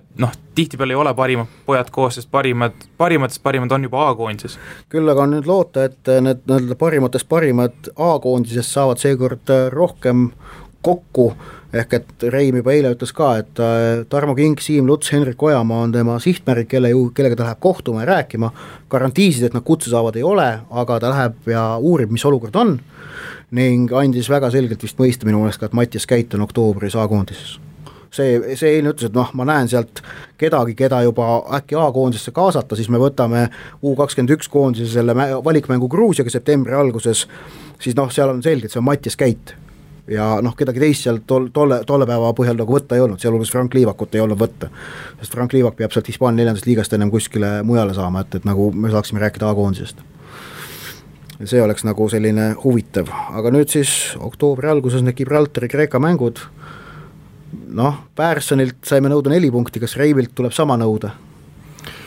tihtipeale ei ole parimad pojad koos, sest parimad on juba A-koondises. Küll aga on nüüd loota, et need parimatest parimad A-koondisest saavad seekord rohkem kokku, ehk et Reim juba eile ütles ka, et Tarmo King, Siim Luts, Henrik Ojamaa on tema sihtmärk, kellega ta läheb kohtuma ja rääkima, garantiisid, et nad kutse saavad ei ole, aga ta läheb ja uurib, mis olukord on, ning andis väga selgelt vist mõista minu meelest ka, et Mattias Käit on oktoobris A-koondises. See eilne ütles, et ma näen sealt kedagi, keda juba äkki A-koondisesse kaasata, siis me võtame U21 koondise selle valikmängu Gruusiaga septembri alguses, siis seal on selge, et see on Mattias Käit. Ja kedagi teist seal tolle päeva põhjal nagu võtta ei olnud, sealhulgas Frank Liivakut ei olnud võtta, sest Frank Liivak peab sealt Hispaania 4. liigast ennem kuskile mujale saama, et nagu me saaksime rääkida A-koondisest. See oleks nagu selline huvitav, aga nüüd siis oktoobri alguses need Gibraltari Kreeka mängud, Pärsonilt saime nõuda 4 punkti, kas Reimilt tuleb sama nõuda?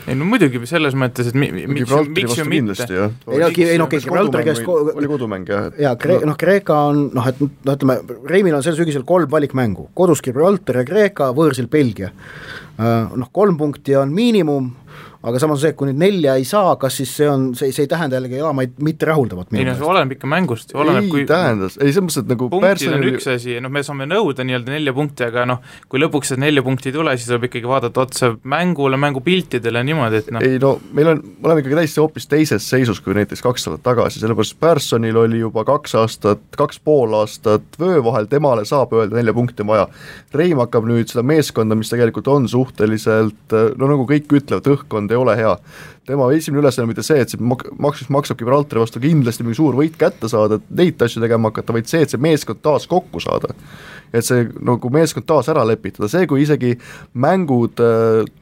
Ei muidugi selles mõttes, et miks ju mitte. Gibraltari käest oli kodumäng, jah. Ja Kreeka on, ütleme, Reimil on sel sügisel 3 valikmängu, kodus Gibraltar ja Kreeka, võõrsil Belgia. 3 punkti on miinimum, aga samas see, kui nüüd 4 ei saa, kas siis see ei tähenda jällegi elamaid mitte rahuldavat? Ei, see oleneb ikka mängust. Tähendas, ei selles mõttes, et nagu punktid on üks asi, me saame nõuda nii-öelda 4 punkti, aga kui lõpuks 4 punkti ei tule, siis tuleb ikkagi vaadata otsa mängule, mängupiltidele niimoodi, et Ei, me oleme ikkagi täiesti hoopis teises seisus kui näiteks 2 aastat tagasi, sellepärast Personil oli juba 2,5 aastat vöö vahel, temale saab öelda 4 punkti vaja. Reim hakkab nüüd seda meeskonda, mis tegelikult on suhteliselt, nagu kõik ütlevad, õhkkond ei ole hea. Tema esimene ülesanne mitte see, et see maksab Gibraltari vastu kindlasti mingi suur võit kätte saada, et neid asju tegema hakata, vaid see, et see meeskond taas kokku saada. Et see nagu meeskond taas ära lepitada, see kui isegi mängud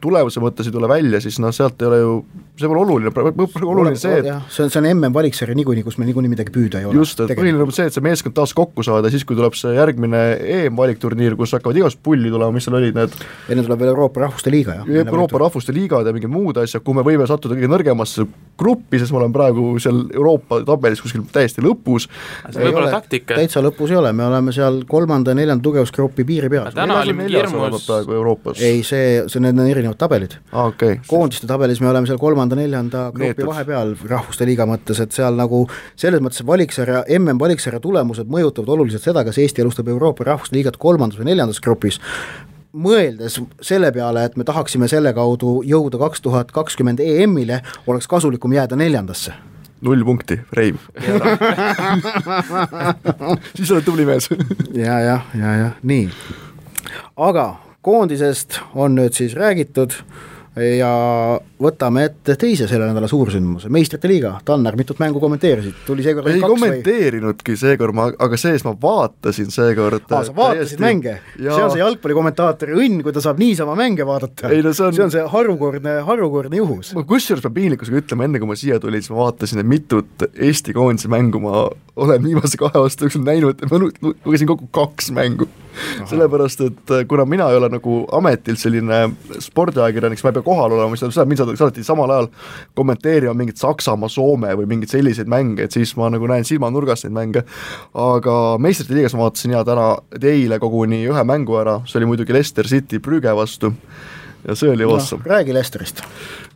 tulemuse mõttes ei tule välja, siis sealt ei ole ju, see pole oluline see, et see on MM-valiksari niikuinii, kus meil niikuinii midagi püüda ei ole. Just, et põhiline on see, et see meeskond taas kokku saada, siis kui tuleb see järgmine EM-valikturniir, kus hakkavad igast pulli tulema, mis seal olid need enne tuleb veel Euroopa Rahvuste Liiga. Euroopa Rahvuste Liigad ja mingid muud asjad, kui me võime sattuda kõige nõrgemasse gruppi, sest me oleme praegu seal Euroopa tabelis kuskil täiesti lõpus. See võib olla taktika. Täitsa lõpus ei ole, me oleme seal 3. ja 4. tugevusgrupi piiri peal. Täna oli hirmus. Ei, need on erinevad tabelid. Okay. Koondiste tabelis me oleme seal 3. ja 4. grupi vahepeal Rahvuste Liiga mõttes, et seal nagu selles mõttes valiksarja, MM-valiksarja tulemused mõjutavad oluliselt seda, kas Eesti alustab Euroopa Rahvuste Liigat 3. või 4. grupis. Mõeldes selle peale, et me tahaksime selle kaudu jõuda 2020 EM-ile, oleks kasulikum jääda 4. 0 punkti, Reim. Siis oled tubli mees. ja, nii. Aga koondisest on nüüd siis räägitud ja võtame ette teise selle nädala suursündmuse, Meistrite Liiga. Tanner, mitut mängu kommenteerisid? Tuli seekord ei kommenteerinudki seekord, aga sees ma vaatasin seekord. Sa vaatasid mänge? Ja. See on see jalgpallikommentaatori õnn, kui ta saab niisama mänge vaadata. Ei, see on see harukordne juhus. Kusjuures ma piinlikkusega ütlema, enne kui ma siia tulin, siis ma vaatasin, et mitut Eesti koondise mängu ma olen viimase 2 aasta jooksul näinud, et ma lugesin kokku 2 mängu. Aha. Sellepärast, et kuna mina ei ole nagu ametilt selline spordiajakirjanik, siis ma ei pea kohal olema, siis mind saadeti samal ajal kommenteerima mingit Saksamaa, Soome või mingid selliseid mänge, et siis ma nagu näen silmanurgast neid mänge, aga Meistrite Liigas ma vaatasin eile koguni 1 mängu ära, see oli muidugi Leicester City Brügge vastu ja see oli awesome. Räägi Leicesterist.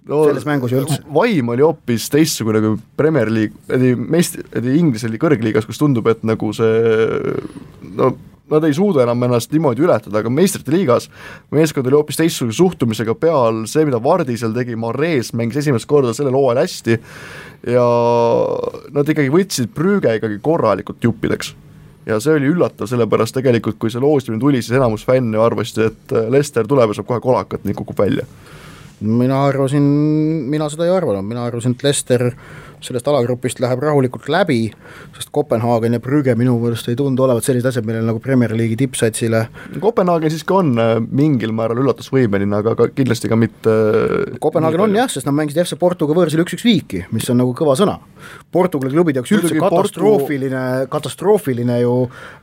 Selles mängus ju üldse. Vaim oli hoopis teistsugune kui Premier League, Inglise kõrgliigas, kus tundub, et nagu see nad ei suuda enam ennast niimoodi ületada, aga Meistrite Liigas meeskond oli hoopis teistsuguse suhtumisega peal, see mida Vardi seal tegi, Mares mängis esimest korda sellel hooajal hästi ja nad ikkagi võtsid Brügge ikkagi korralikult juppideks. Ja see oli üllatav, sellepärast tegelikult, kui see loostimine tuli, siis enamus fänne arvasid, et Leicester tuleb ja saab kohe kolakat, nii kukub välja. Mina seda ei arvanud, mina arvasin, et Leicester sellest alagrupist läheb rahulikult läbi, sest Kopenhaagen ja Brügge minu mõelest ei tundu olevat sellised asjad, millel nagu Premier League'i tippsatsile. Kopenhaagen siiski on mingil määral üllatusvõimeline, aga kindlasti ka mitte Kopenhaagen on jah, sest nad mängisid FC Portuga võõrsil 1-1 viiki, mis on nagu kõva sõna. Portugali klubid jaoks üldse katastroofiline ju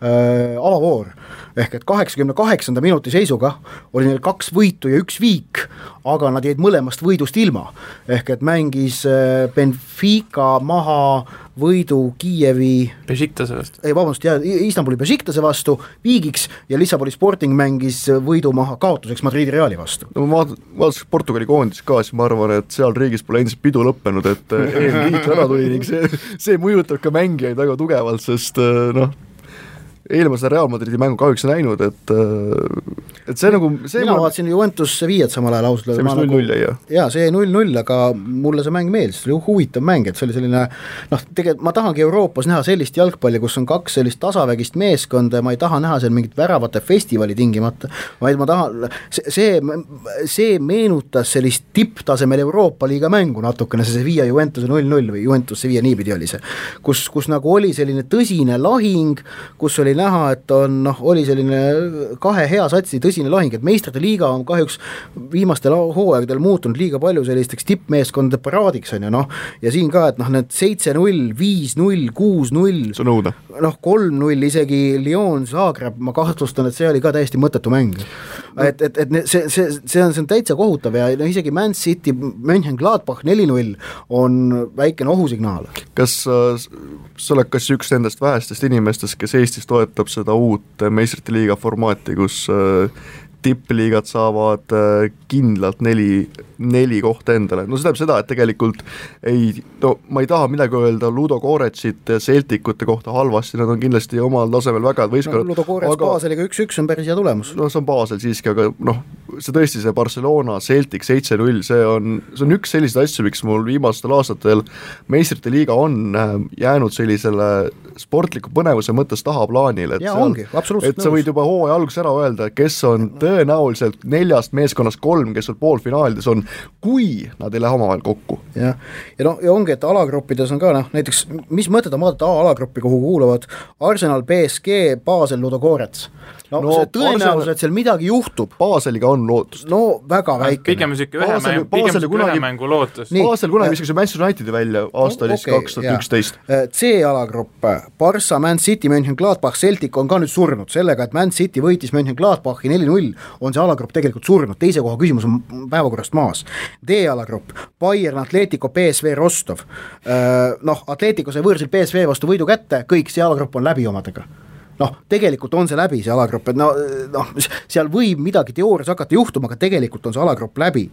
avavoor. Ehk et 88. minuti seisuga oli neil 2 võitu ja 1 viik, aga nad jäid mõlemast võidust ilma. Ehk et mängis Benfica Benfica maha võidu Kiievi Bešiktase vastu. Istanbuli Bešiktase vastu viigiks ja Lissaboni Sporting mängis võidu maha kaotuseks Madridi Reali vastu. No ma vaatasin Portugali koondis ka, siis ma arvan, et seal riigis pole endiselt pidu lõppenud, et eelliit ära tuli ning see mõjutab ka mängijaid väga tugevalt, sest eelmast Real Madridi mängu kahjuks näinud, et see nagu mina vaatasin Juventus Sevilla'd samal ajal ausalt. See mis 0-0 jäi, jah? Jaa, see 0-0, aga mulle see mäng meeldis, see oli huvitav mäng, et see oli selline tegelikult ma tahangi Euroopas näha sellist jalgpalli, kus on kaks sellist tasavägist meeskonda ja ma ei taha näha seal mingit väravate festivali tingimata, vaid ma tahan, see meenutas sellist tipptasemel Euroopa liiga mängu natukene, see Sevilla Juventuse 0-0 või Juventus Sevilla niipidi oli see, kus nagu oli selline tõsine lahing, kus oli näha, et oli selline kahe hea satsi tõsine lahing, et meistrite liiga on kahjuks viimastel hooaegadel muutunud liiga palju sellisteks tippmeeskondade paraadiks on ju, ja siin ka, et need 7-0, 5-0, 6-0, 3-0 isegi Lyon, Zagreb, ma kahtlustan, et see oli ka täiesti mõttetu mäng. Et see on täitsa kohutav ja isegi Man City, Mönchengladbach 4-0 on väikene ohusignaal. Kas sa oled kas üks nendest vähestest inimestest, kes Eestis toetab seda uut meistrite liiga formaati, kus tippliigad saavad kindlalt neli kohta endale. No see tähendab seda, et tegelikult ma ei taha midagi öelda Ludo Goretsit ja Celticute kohta halvasti, nad on kindlasti omal tasemel väga võistkonnad. Ludo Gorets Baseliga 1-1 on päris hea tulemus. See on Basel siiski, aga see tõesti see Barcelona, Celtic 7-0, see on üks selliseid asju, miks mul viimastel aastatel meistrite liiga on jäänud sellisele sportliku põnevuse mõttes tahaplaanile, et sa võid juba hooaja alguses ära öelda, kes on tõenäoliselt 4 meeskonnast 3, kes on poolfinaalides on, kui nad ei lähe omavahel kokku. Ja ongi, et alagruppides on ka näiteks, mis mõtet on vaadata alagruppi, kuhu kuuluvad Arsenal, PSG, Basel, Ludo Gorets. See tõenäoliselt seal midagi juhtub. Baseliga on lootust. Väga väike. Pigem ühe mängu lootus. Basel kunagi viskas Manchester Unitedi välja aasta oli 2011. C-alagrupp, Barca, Man City, Mönchengladbach, Celtic on ka nüüd surnud sellega, et Man City võitis Mönchengladbachi 4-0, on see alagrupp tegelikult surnud, teise koha küsimus on päevakorrast maas. D-alagrupp, Bayern, Atletico, PSV, Rostov. Atletico sai võõrsil PSV vastu võidu kätte, kõik see alagrupp on läbi omadega. Tegelikult on see läbi, see alagrupp, et seal võib midagi teoorias hakata juhtuma, aga tegelikult on see alagrupp läbi.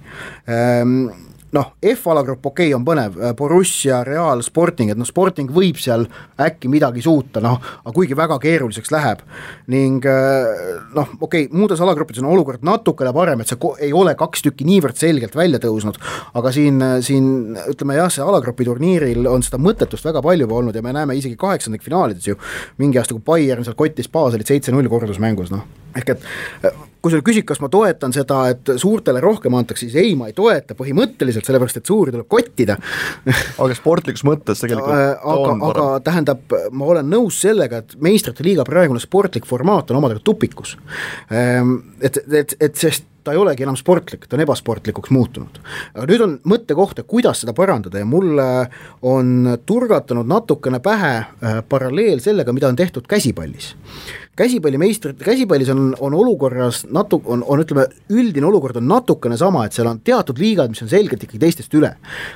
F-alagrupp on põnev, Borussia, Real, Sporting, et Sporting võib seal äkki midagi suuta, aga kuigi väga keeruliseks läheb ning muudes alagruppides on olukord natukene parem, et see ei ole 2 tükki niivõrd selgelt välja tõusnud, aga siin ütleme jah, see alagrupi turniiril on seda mõttetust väga palju olnud ja me näeme isegi 8. finaalides ju mingi aasta, kui Bayern seal kottis Baselit 7-0 kordusmängus, ehk et kui sa küsid, kas ma toetan seda, et suurtele rohkem antakse, siis ei, ma ei toeta põhimõtteliselt, sellepärast, et suuri tuleb kottida. Aga sportlikus mõttes tegelikult aga tähendab, ma olen nõus sellega, et meistrite liiga praegune sportlik formaat on omadega tupikus. Et sest ta ei olegi enam sportlik, ta on ebasportlikuks muutunud. Aga nüüd on mõttekoht, kuidas seda parandada ja mulle on turgatanud natukene pähe paralleel sellega, mida on tehtud käsipallis. Käsipallis on olukorras ütleme, üldine olukord on natukene sama, et seal on teatud liigad, mis on selgelt ikkagi teistest üle.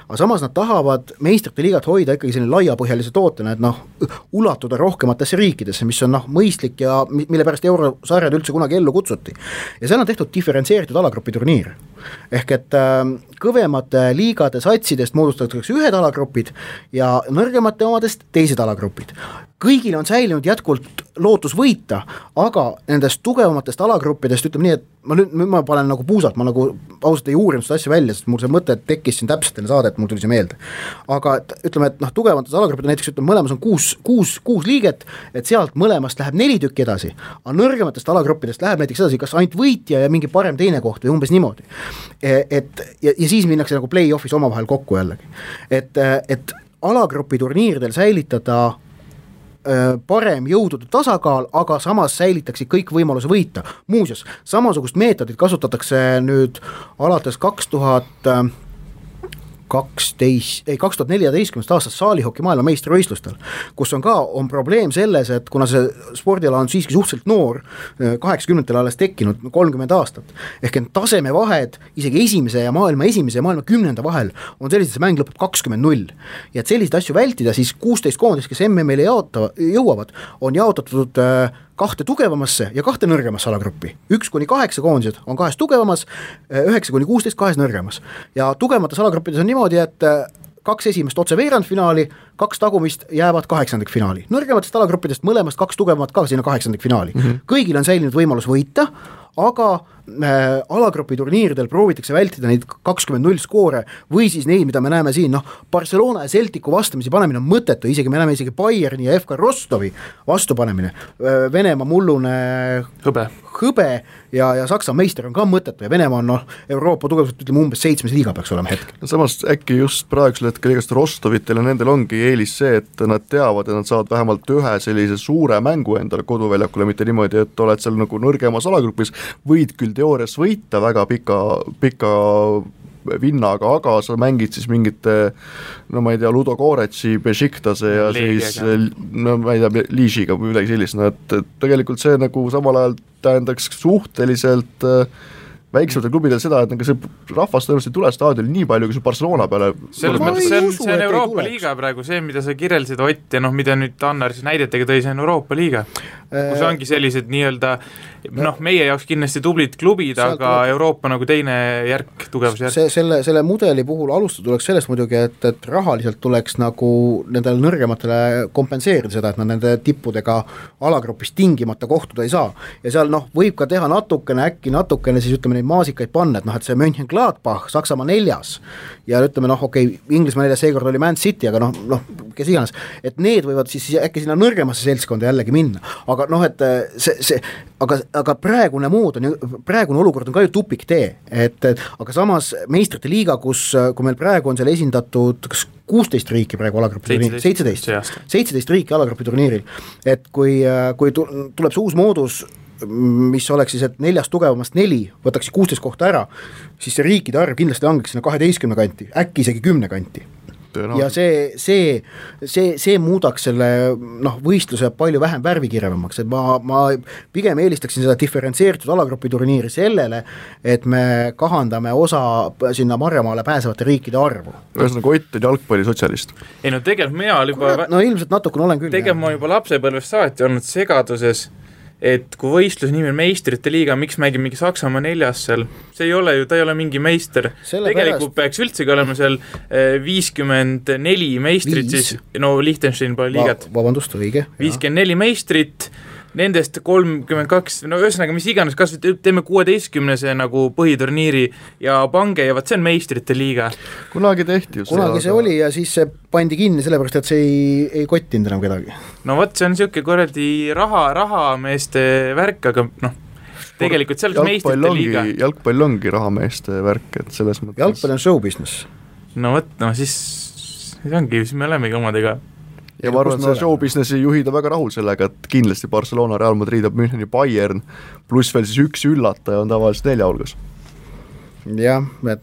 Aga samas nad tahavad meistrite liigat hoida ikkagi selline laiapõhjalise tootena, et ulatuda rohkematesse riikidesse, mis on mõistlik ja mille pärast eurosarjad üldse kunagi ellu kutsuti. Ja seal on tehtud diferentseeritud alagrupi turniir. Ehk et kõvemate liigade satsidest moodustatakse ühed alagrupid ja nõrgemate omadest teised alagrupid. Kõigil on säilinud jätkuvalt lootus võita, aga nendest tugevamatest alagruppidest ütleme nii, et ma panen nagu puusalt, ma nagu ausalt ei uurinud seda asja välja, sest mul see mõte tekkis siin täpselt enne saadet, mul tuli see meelde. Aga ütleme, et tugevamatest alagruppidest näiteks ütleme, mõlemas on 6 liiget, et sealt mõlemast läheb 4 tükki edasi, aga nõrgematest alagruppidest läheb näiteks edasi kas ainult võitja ja mingi parem teine koht või umbes niimoodi. Ja siis minnakse nagu play-offis omavahel kokku jällegi. Et alagrupi turniiridel säilitada parem jõudude tasakaal, aga samas säilitakse kõik võimaluse võita. Muuseas, samasugust meetodit kasutatakse nüüd alates 2014 aastast saalihoki maailma meistrivõistlustel, kus on probleem selles, et kuna see spordiala on siiski suhteliselt noor, 80-ndatel alles tekkinud 30 aastat, ehk et tasemevahed isegi esimese ja maailma 10. vahel on sellised, see mäng lõpeb 20-0 ja et selliseid asju vältida, siis 16 koondist, kes MM-ile jõuavad, on jaotatud 2 tugevamasse ja 2 nõrgemasse alagruppi. 1-8 koondised on 2 tugevamas, 9-16 2 nõrgemas. Ja tugevamates alagruppides on niimoodi, et 2 esimest otse veerandfinaali, 2 tagumist jäävad 8. finaali. Nõrgematest alagruppidest mõlemast 2 tugevamat ka sinna 8. finaali. Kõigil on säilinud võimalus võita, aga alagrupi turniiridel proovitakse vältida neid 20-0 skoore või siis neid, mida me näeme siin, Barcelona ja Celticu vastamisi panemine on mõttetu, isegi me näeme isegi Bayerni ja FK Rostovi vastupanemine, Venemaa mullune hõbe ja Saksa meister on ka mõttetu ja Venemaa on Euroopa tugevalt ütleme umbes 7. liiga peaks olema hetkel. Samas äkki just praegusel hetkel igast Rostovitel ja nendel ongi eelis see, et nad teavad, et nad saavad vähemalt ühe sellise suure mängu endale koduväljakule, mitte niimoodi, et oled seal nagu nõrgemas alagrupis, võid küll teoorias võita väga pika vinnaga, aga sa mängid siis mingite, ma ei tea, Ludo Goretsi, Bešiktase ja siis, ma ei tea, Liišiga või midagi sellist, et tegelikult see nagu samal ajal tähendaks suhteliselt väiksematel klubidel seda, et see rahvast tõenäoliselt ei tule staadionil nii palju, kui see Barcelona peale. Selles mõttes see on Euroopa liiga praegu, see, mida sa kirjeldasid Ott ja mida nüüd Annar siis näidetega tõi, see on Euroopa liiga, kus ongi sellised nii-öelda meie jaoks kindlasti tublid klubid, aga Euroopa nagu teine järk, tugevusjärk. Selle mudeli puhul alustada tuleks sellest muidugi, et rahaliselt tuleks nagu nendele nõrgematele kompenseerida seda, et nad nende tippudega alagrupis tingimata kohtuda ei saa. Ja seal võib ka teha natukene siis ütleme neid maasikaid panna, et see Mönchengladbach, Saksamaa 4. ja ütleme Inglismaa 4. seekord oli Man City, aga kes iganes, et need võivad siis äkki sinna nõrgemasse seltskonda jällegi minna, aga aga praegune olukord on ka ju tupik tee, aga samas meistrite liiga, kui meil praegu on seal esindatud 16 riiki praegu alagrupi turniiril, 17 riiki alagrupi turniiril, et kui tuleb see uus moodus, mis oleks siis, et 4 tugevamast 4 võtaks 16 kohta ära, siis see riikide arv kindlasti langeks sinna 12 kanti, äkki isegi 10 kanti. Ja see muudaks selle võistluse palju vähem värvikirjavamaks, et ma pigem eelistaksin seda diferentseeritud alagrupi turniiri sellele, et me kahandame osa sinna Marjamaale pääsevate riikide arvu. Ühesõnaga Ott on jalgpallisotsialist. Ei tegelikult mina juba ilmselt natukene olen küll. Tegelikult ma juba lapsepõlvest saati olnud segaduses, et kui võistlus nimi on meistrite liiga, miks mängib mingi Saksamaa 4. seal, ta ei ole mingi meister. Tegelikult peaks üldsegi olema seal 54 meistrit, siis Liechtenstein pole liigat. Vabandust, õige. 54 meistrit, nendest 32, ühesõnaga mis iganes, kas teeme 16 nagu põhiturniiri ja pange ja see on meistrite liiga. Kunagi tehti just. Kunagi see oli ja siis see pandi kinni sellepärast, et see ei kottinud enam kedagi. See on siuke korraldi rahameeste värk, aga tegelikult seal on meistrite liiga. Jalgpall ongi rahameeste värk, et selles mõttes. Jalgpall on show business. Siis ongi, siis me olemegi omadega. Ja ma arvan, see show businessi juhida väga rahul sellega, et kindlasti Barcelona, Real Madrid, Müncheni Bayern, pluss veel siis üks üllataja on tavaliselt 4 hulgas. Jah, et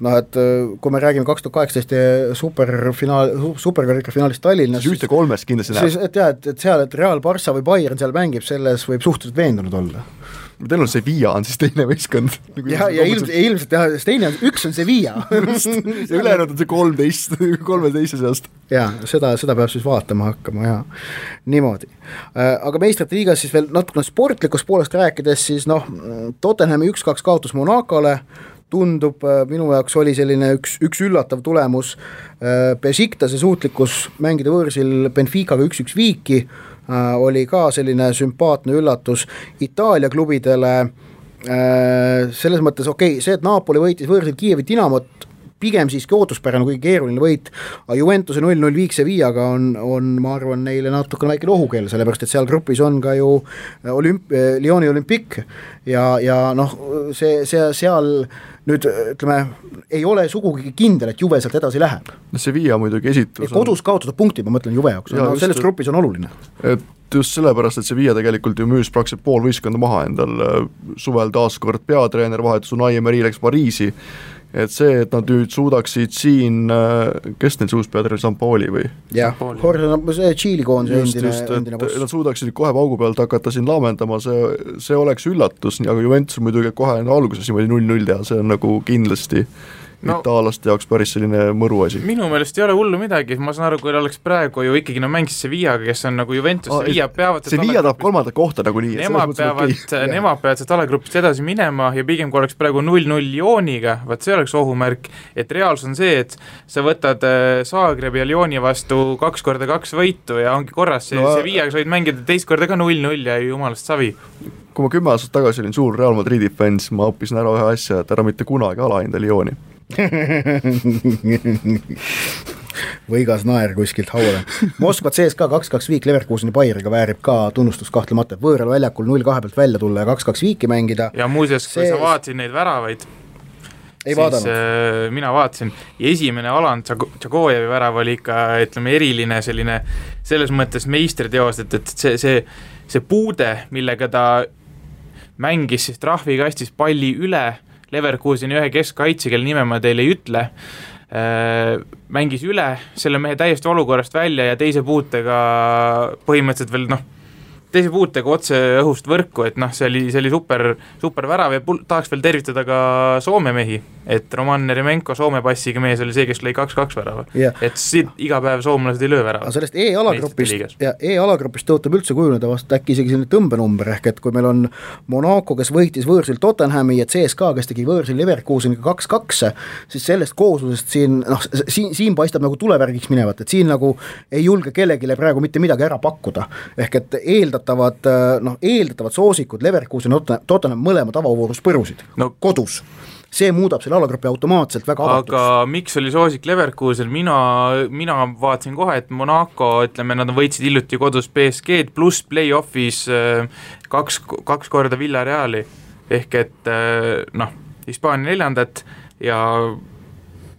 kui me räägime 2018 superkarika finaalist Tallinnas, siis 1-3 kindlasti näeb. Et seal, et Real, Barça või Bayern seal mängib, selles võib suhteliselt veendunud olla. Teil on Sevilla on siis teine võistkond. Ja ilmselt teine on, üks on Sevilla. ja ülejäänud on see 13 seast. Ja, seda peab siis vaatama hakkama, ja niimoodi. Aga meistrite liigas siis veel natukene sportlikust poolest rääkides, siis Tottenhami 1-2 kaotus Monacole, tundub, minu jaoks oli selline üks üllatav tulemus, Bešiktase suutlikkus mängida võõrsil Benficaga 1-1 viiki, oli ka selline sümpaatne üllatus Itaalia klubidele, selles mõttes see, et Napoli võitis võõrsil Kiievi Dinamot, pigem siiski ootuspärane, kui keeruline võit, aga Juventuse 0-0 viik Sevillaga on, ma arvan, neile natukene väike ohukeel, sellepärast, et seal grupis on ka ju Lyoni Olympic ja see seal nüüd, ütleme, ei ole sugugi kindel, et Juve sealt edasi läheb. Sevilla muidugi esitus on... Kodus kaotada punktid, ma mõtlen Juve jaoks, selles grupis on oluline. Et just sellepärast, et Sevilla tegelikult ju müüs praktiliselt pool võistkonda maha endal suvel taaskord peatreener vahetus Unai Emery läks Pariisi et see, et nad nüüd suudaksid siin, kes neil uus peatreener, Sampaoli või? Jah, see Tšiili koondise endine boss. Nad suudaksid kohe paugu pealt hakata siin laamendama, see oleks üllatus, aga Juventus muidugi kohe alguses niimoodi 0-0 teha, see on nagu kindlasti itaalaste jaoks päris selline mõru asi. Minu meelest ei ole hullu midagi, ma saan aru, kui oleks praegu ju ikkagi mängis Sevillaga, kes on nagu Juventus, Sevilla peavad Sevilla tahab kolmandat kohta nagu nii. Nemad peavad sealt alagrupist edasi minema ja pigem kui oleks praegu 0-0 Lyoniga, vaat see oleks ohumärk, et reaalsus on see, et sa võtad Zagrebi ja Lyoni vastu 2x2 võitu ja ongi korras, Sevillaga sa võid mängida teist korda ka 0-0 ja jumalast savi. Kui ma 10 aastat tagasi olin suur Real Madridi fans, ma õppisin ära ühe asja, et ära mitte kunagi alahinda Lyoni. võigas naer kuskilt haule. Moskva CSKA 2-2 viik Leverkuseni Bayeriga väärib ka tunnustust kahtlemata, võõral väljakul 0-2 pealt välja tulla ja 2-2 viiki mängida. Ja muuseas, kui sa vaatasid neid väravaid, siis mina vaatasin ja esimene Alan Tšagojevi värav oli ikka, ütleme, eriline selline selles mõttes meistriteos, et see puude, millega ta mängis siis trahvikastis palli üle Leverkuseni ühe keskkaitse, kelle nime ma teile ei ütle, mängis üle selle mehe täiesti olukorrast välja ja teise puutega põhimõtteliselt veel teise puutega otse õhust võrku, et see oli super värav ja tahaks veel tervitada ka Soome mehi, et Roman Neremenko Soome passiga mees oli see, kes lõi 2-2 värava, et siit iga päev soomlased ei löö värava. Aga sellest E-alagrupist tõotab üldse kujuneda vast äkki isegi selline tõmbenumber, ehk et kui meil on Monaco, kes võitis võõrsil Tottenhami ja CSKA, kes tegi võõrsil Leverkuseniga 2-2, siis sellest kooslusest siin paistab nagu tulevärgiks minevat, et siin nagu ei julge kellegile praegu mitte midagi ära pakkuda, ehk et eeldatavad soosikud Leverkusen Tottenham mõlema tavavoorus põrusid kodus. See muudab selle alagrupi automaatselt väga avatuks. Aga miks oli soosik Leverkusen? Mina vaatasin kohe, et Monaco, ütleme, nad võitsid hiljuti kodus PSG-d pluss play-offis kaks korda Villareali ehk et Hispaania 4. ja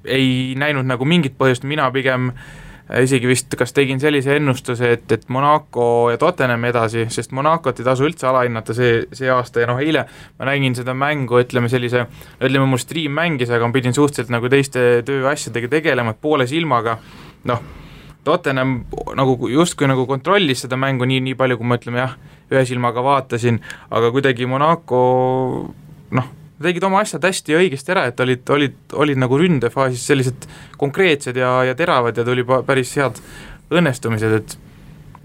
ei näinud nagu mingit põhjust, mina pigem isegi vist kas tegin sellise ennustuse, et Monaco ja Tottenham edasi, sest Monacot ei tasu üldse alahinnata see aasta ja eile ma nägin seda mängu, ütleme mul stream mängis, aga ma pidin suhteliselt nagu teiste tööasjadega tegelema, et poole silmaga, Tottenham nagu justkui nagu kontrollis seda mängu nii palju, kui ma ühe silmaga vaatasin, aga kuidagi Monaco tegid oma asjad hästi ja õigesti ära, et olid nagu ründefaasis sellised konkreetsed ja teravad ja tuli päris head õnnestumised, et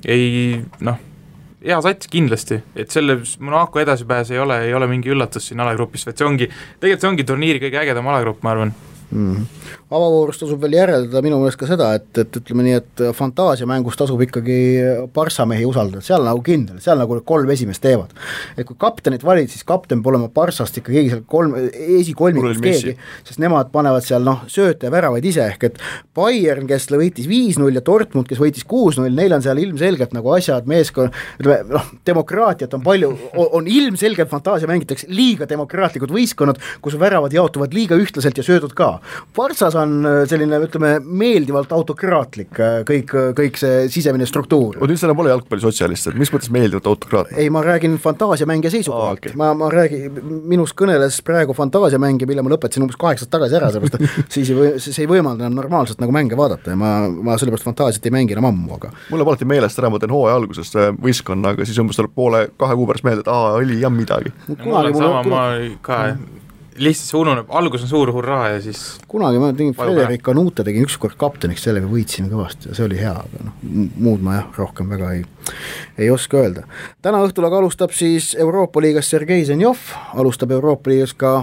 hea sats kindlasti, et selle Monaco edasipääs ei ole mingi üllatus siin alagrupis, et see ongi turniiri kõige ägedam alagrupp, ma arvan. Avavoorust tasub veel järeldada minu meelest ka seda, et ütleme nii, et fantaasiamängus tasub ikkagi Barca mehi usaldada, seal nagu kindel, seal nagu 3 esimest teevad. Et kui kaptenit valid, siis kapten pole olema Barcast ikka keegi seal esikolmikust keegi, sest nemad panevad seal sööte ja väravaid ise, ehk et Bayern, kes võitis 5-0 ja Dortmund, kes võitis 6-0, neil on seal ilmselgelt nagu asjad, meeskond, demokraatiat on palju, on ilmselgelt fantaasia mängitakse liiga demokraatlikud võistkonnad, kus väravad jaotuvad liiga ühtlaselt ja söödud ka. Barcas on selline, ütleme, meeldivalt autokraatlik kõik see sisemine struktuur. Nüüd selle pole jalgpallisotsialist, et mis mõttes meeldivalt autokraatlik? Ei, ma räägin fantaasiamängija seisukohalt. Okay. Ma räägin, minus kõneles praegu fantaasiamängija, mille ma lõpetasin umbes 8 tagasi ära, sellepärast siis ei võimalda enam normaalselt nagu mänge vaadata ja ma sellepärast fantaasiat ei mängi enam ammu, aga mulle alati meelest ära, ma teen hooaja algusest võistkonna, aga siis umbes tuleb 2 kuu pärast meelde, et oli jah midagi. Ma ka lihtsalt see ununeb, algus on suur hurraa ja siis kunagi ma tegin Frederik Kanute, tegin ükskord kapteniks, sellega võitsime kõvasti ja see oli hea, aga muud ma rohkem väga ei oska öelda. Täna õhtul aga alustab siis Euroopa liigas Sergei Zenjov, alustab Euroopa liigas ka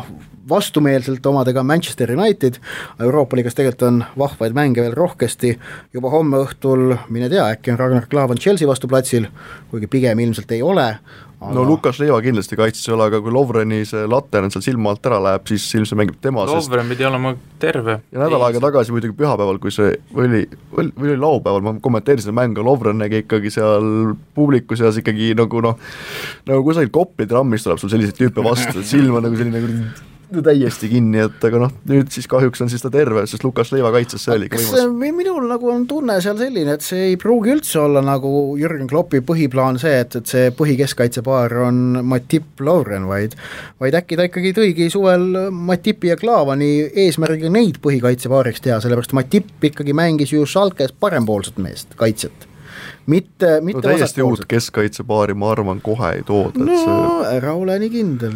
vastumeelselt omadega Manchester United, Euroopa liigas tegelikult on vahvaid mänge veel rohkesti, juba homme õhtul, mine tea, äkki on Ragnar Klavan Chelsea vastu platsil, kuigi pigem ilmselt ei ole. No Lukas Leiva kindlasti kaitses ei ole, aga kui Lovreni see later on seal silma alt ära läheb, siis ilmselt mängib tema. Lovren pidi olema terve. Ja nädal aega tagasi muidugi pühapäeval, kui see oli laupäeval, ma kommenteerisin mängu, Lovren nägi ikkagi seal publiku seas ikkagi nagu kusagil Kopli trammist tuleb sul selliseid tüüpe vastu, et silm on nagu selline täiesti kinni, et aga noh, nüüd siis kahjuks on siis ta terve, sest Lukas Leiva kaitses, see oli võimas. Minul nagu on tunne seal selline, et see ei pruugi üldse olla nagu Jürgen Kloppi põhiplaan see, et see põhikeskkaitsepaar on Matip Lovren, vaid äkki ta ikkagi tõigi suvel Matipi ja Klaavani eesmärgiga neid põhikaitsepaariks teha, sellepärast Matip ikkagi mängis ju Schalkes parempoolset meest, kaitset. Mitte täiesti uut keskkaitsepaari, ma arvan, kohe ei tooda. No ära ole nii kindel,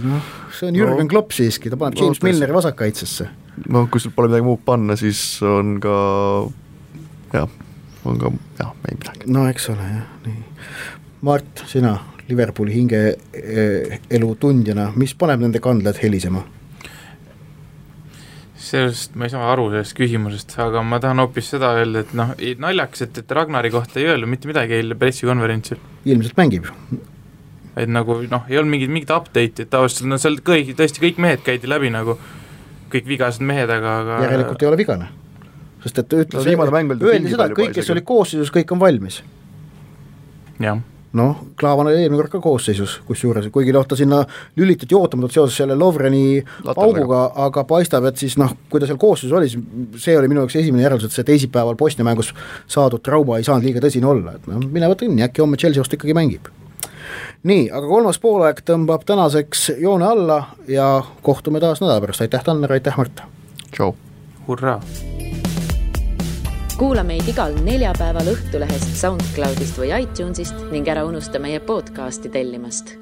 see on Jürgen Klopp siiski, ta paneb James Milneri vasakkaitsesse. No kui sul pole midagi muud panna, siis on ka ei midagi. No eks ole, jah, nii. Mart, sina Liverpooli hinge elu tundjana, mis paneb nende kandlad helisema? Sellest ma ei saa aru sellest küsimusest, aga ma tahan hoopis seda öelda, et naljaks, et Ragnari kohta ei öelnud mitte midagi eile pressikonverentsil. Ilmselt mängib. Et nagu, ei olnud mingit update'i, et tavaliselt, seal tõesti kõik mehed käidi läbi nagu, kõik vigased mehed, aga järelikult ei ole vigane. Sest et öeldi seda, et kõik, kes oli koosseisus, kõik on valmis. Jah. Klaavan oli eelmine kord ka koosseisus, kusjuures, kuigi ta sinna lülitati ootamatult seoses selle Lovreni pauguga, aga paistab, et siis kui ta seal koosseisus oli, see oli minu jaoks esimene järeldus, et see teisipäeval Bosnia mängus saadud trauma ei saanud liiga tõsine olla, et minevat õnni, äkki homme Chelsea vastu ikkagi mängib. Nii, aga kolmas poolaeg tõmbab tänaseks joone alla ja kohtume taas nädala pärast, aitäh Tanner, aitäh Mart. Tšau. Hurraa. Kuula meid igal neljapäeval Õhtulehest, SoundCloudist või iTunesist ning ära unusta meie podcasti tellimast.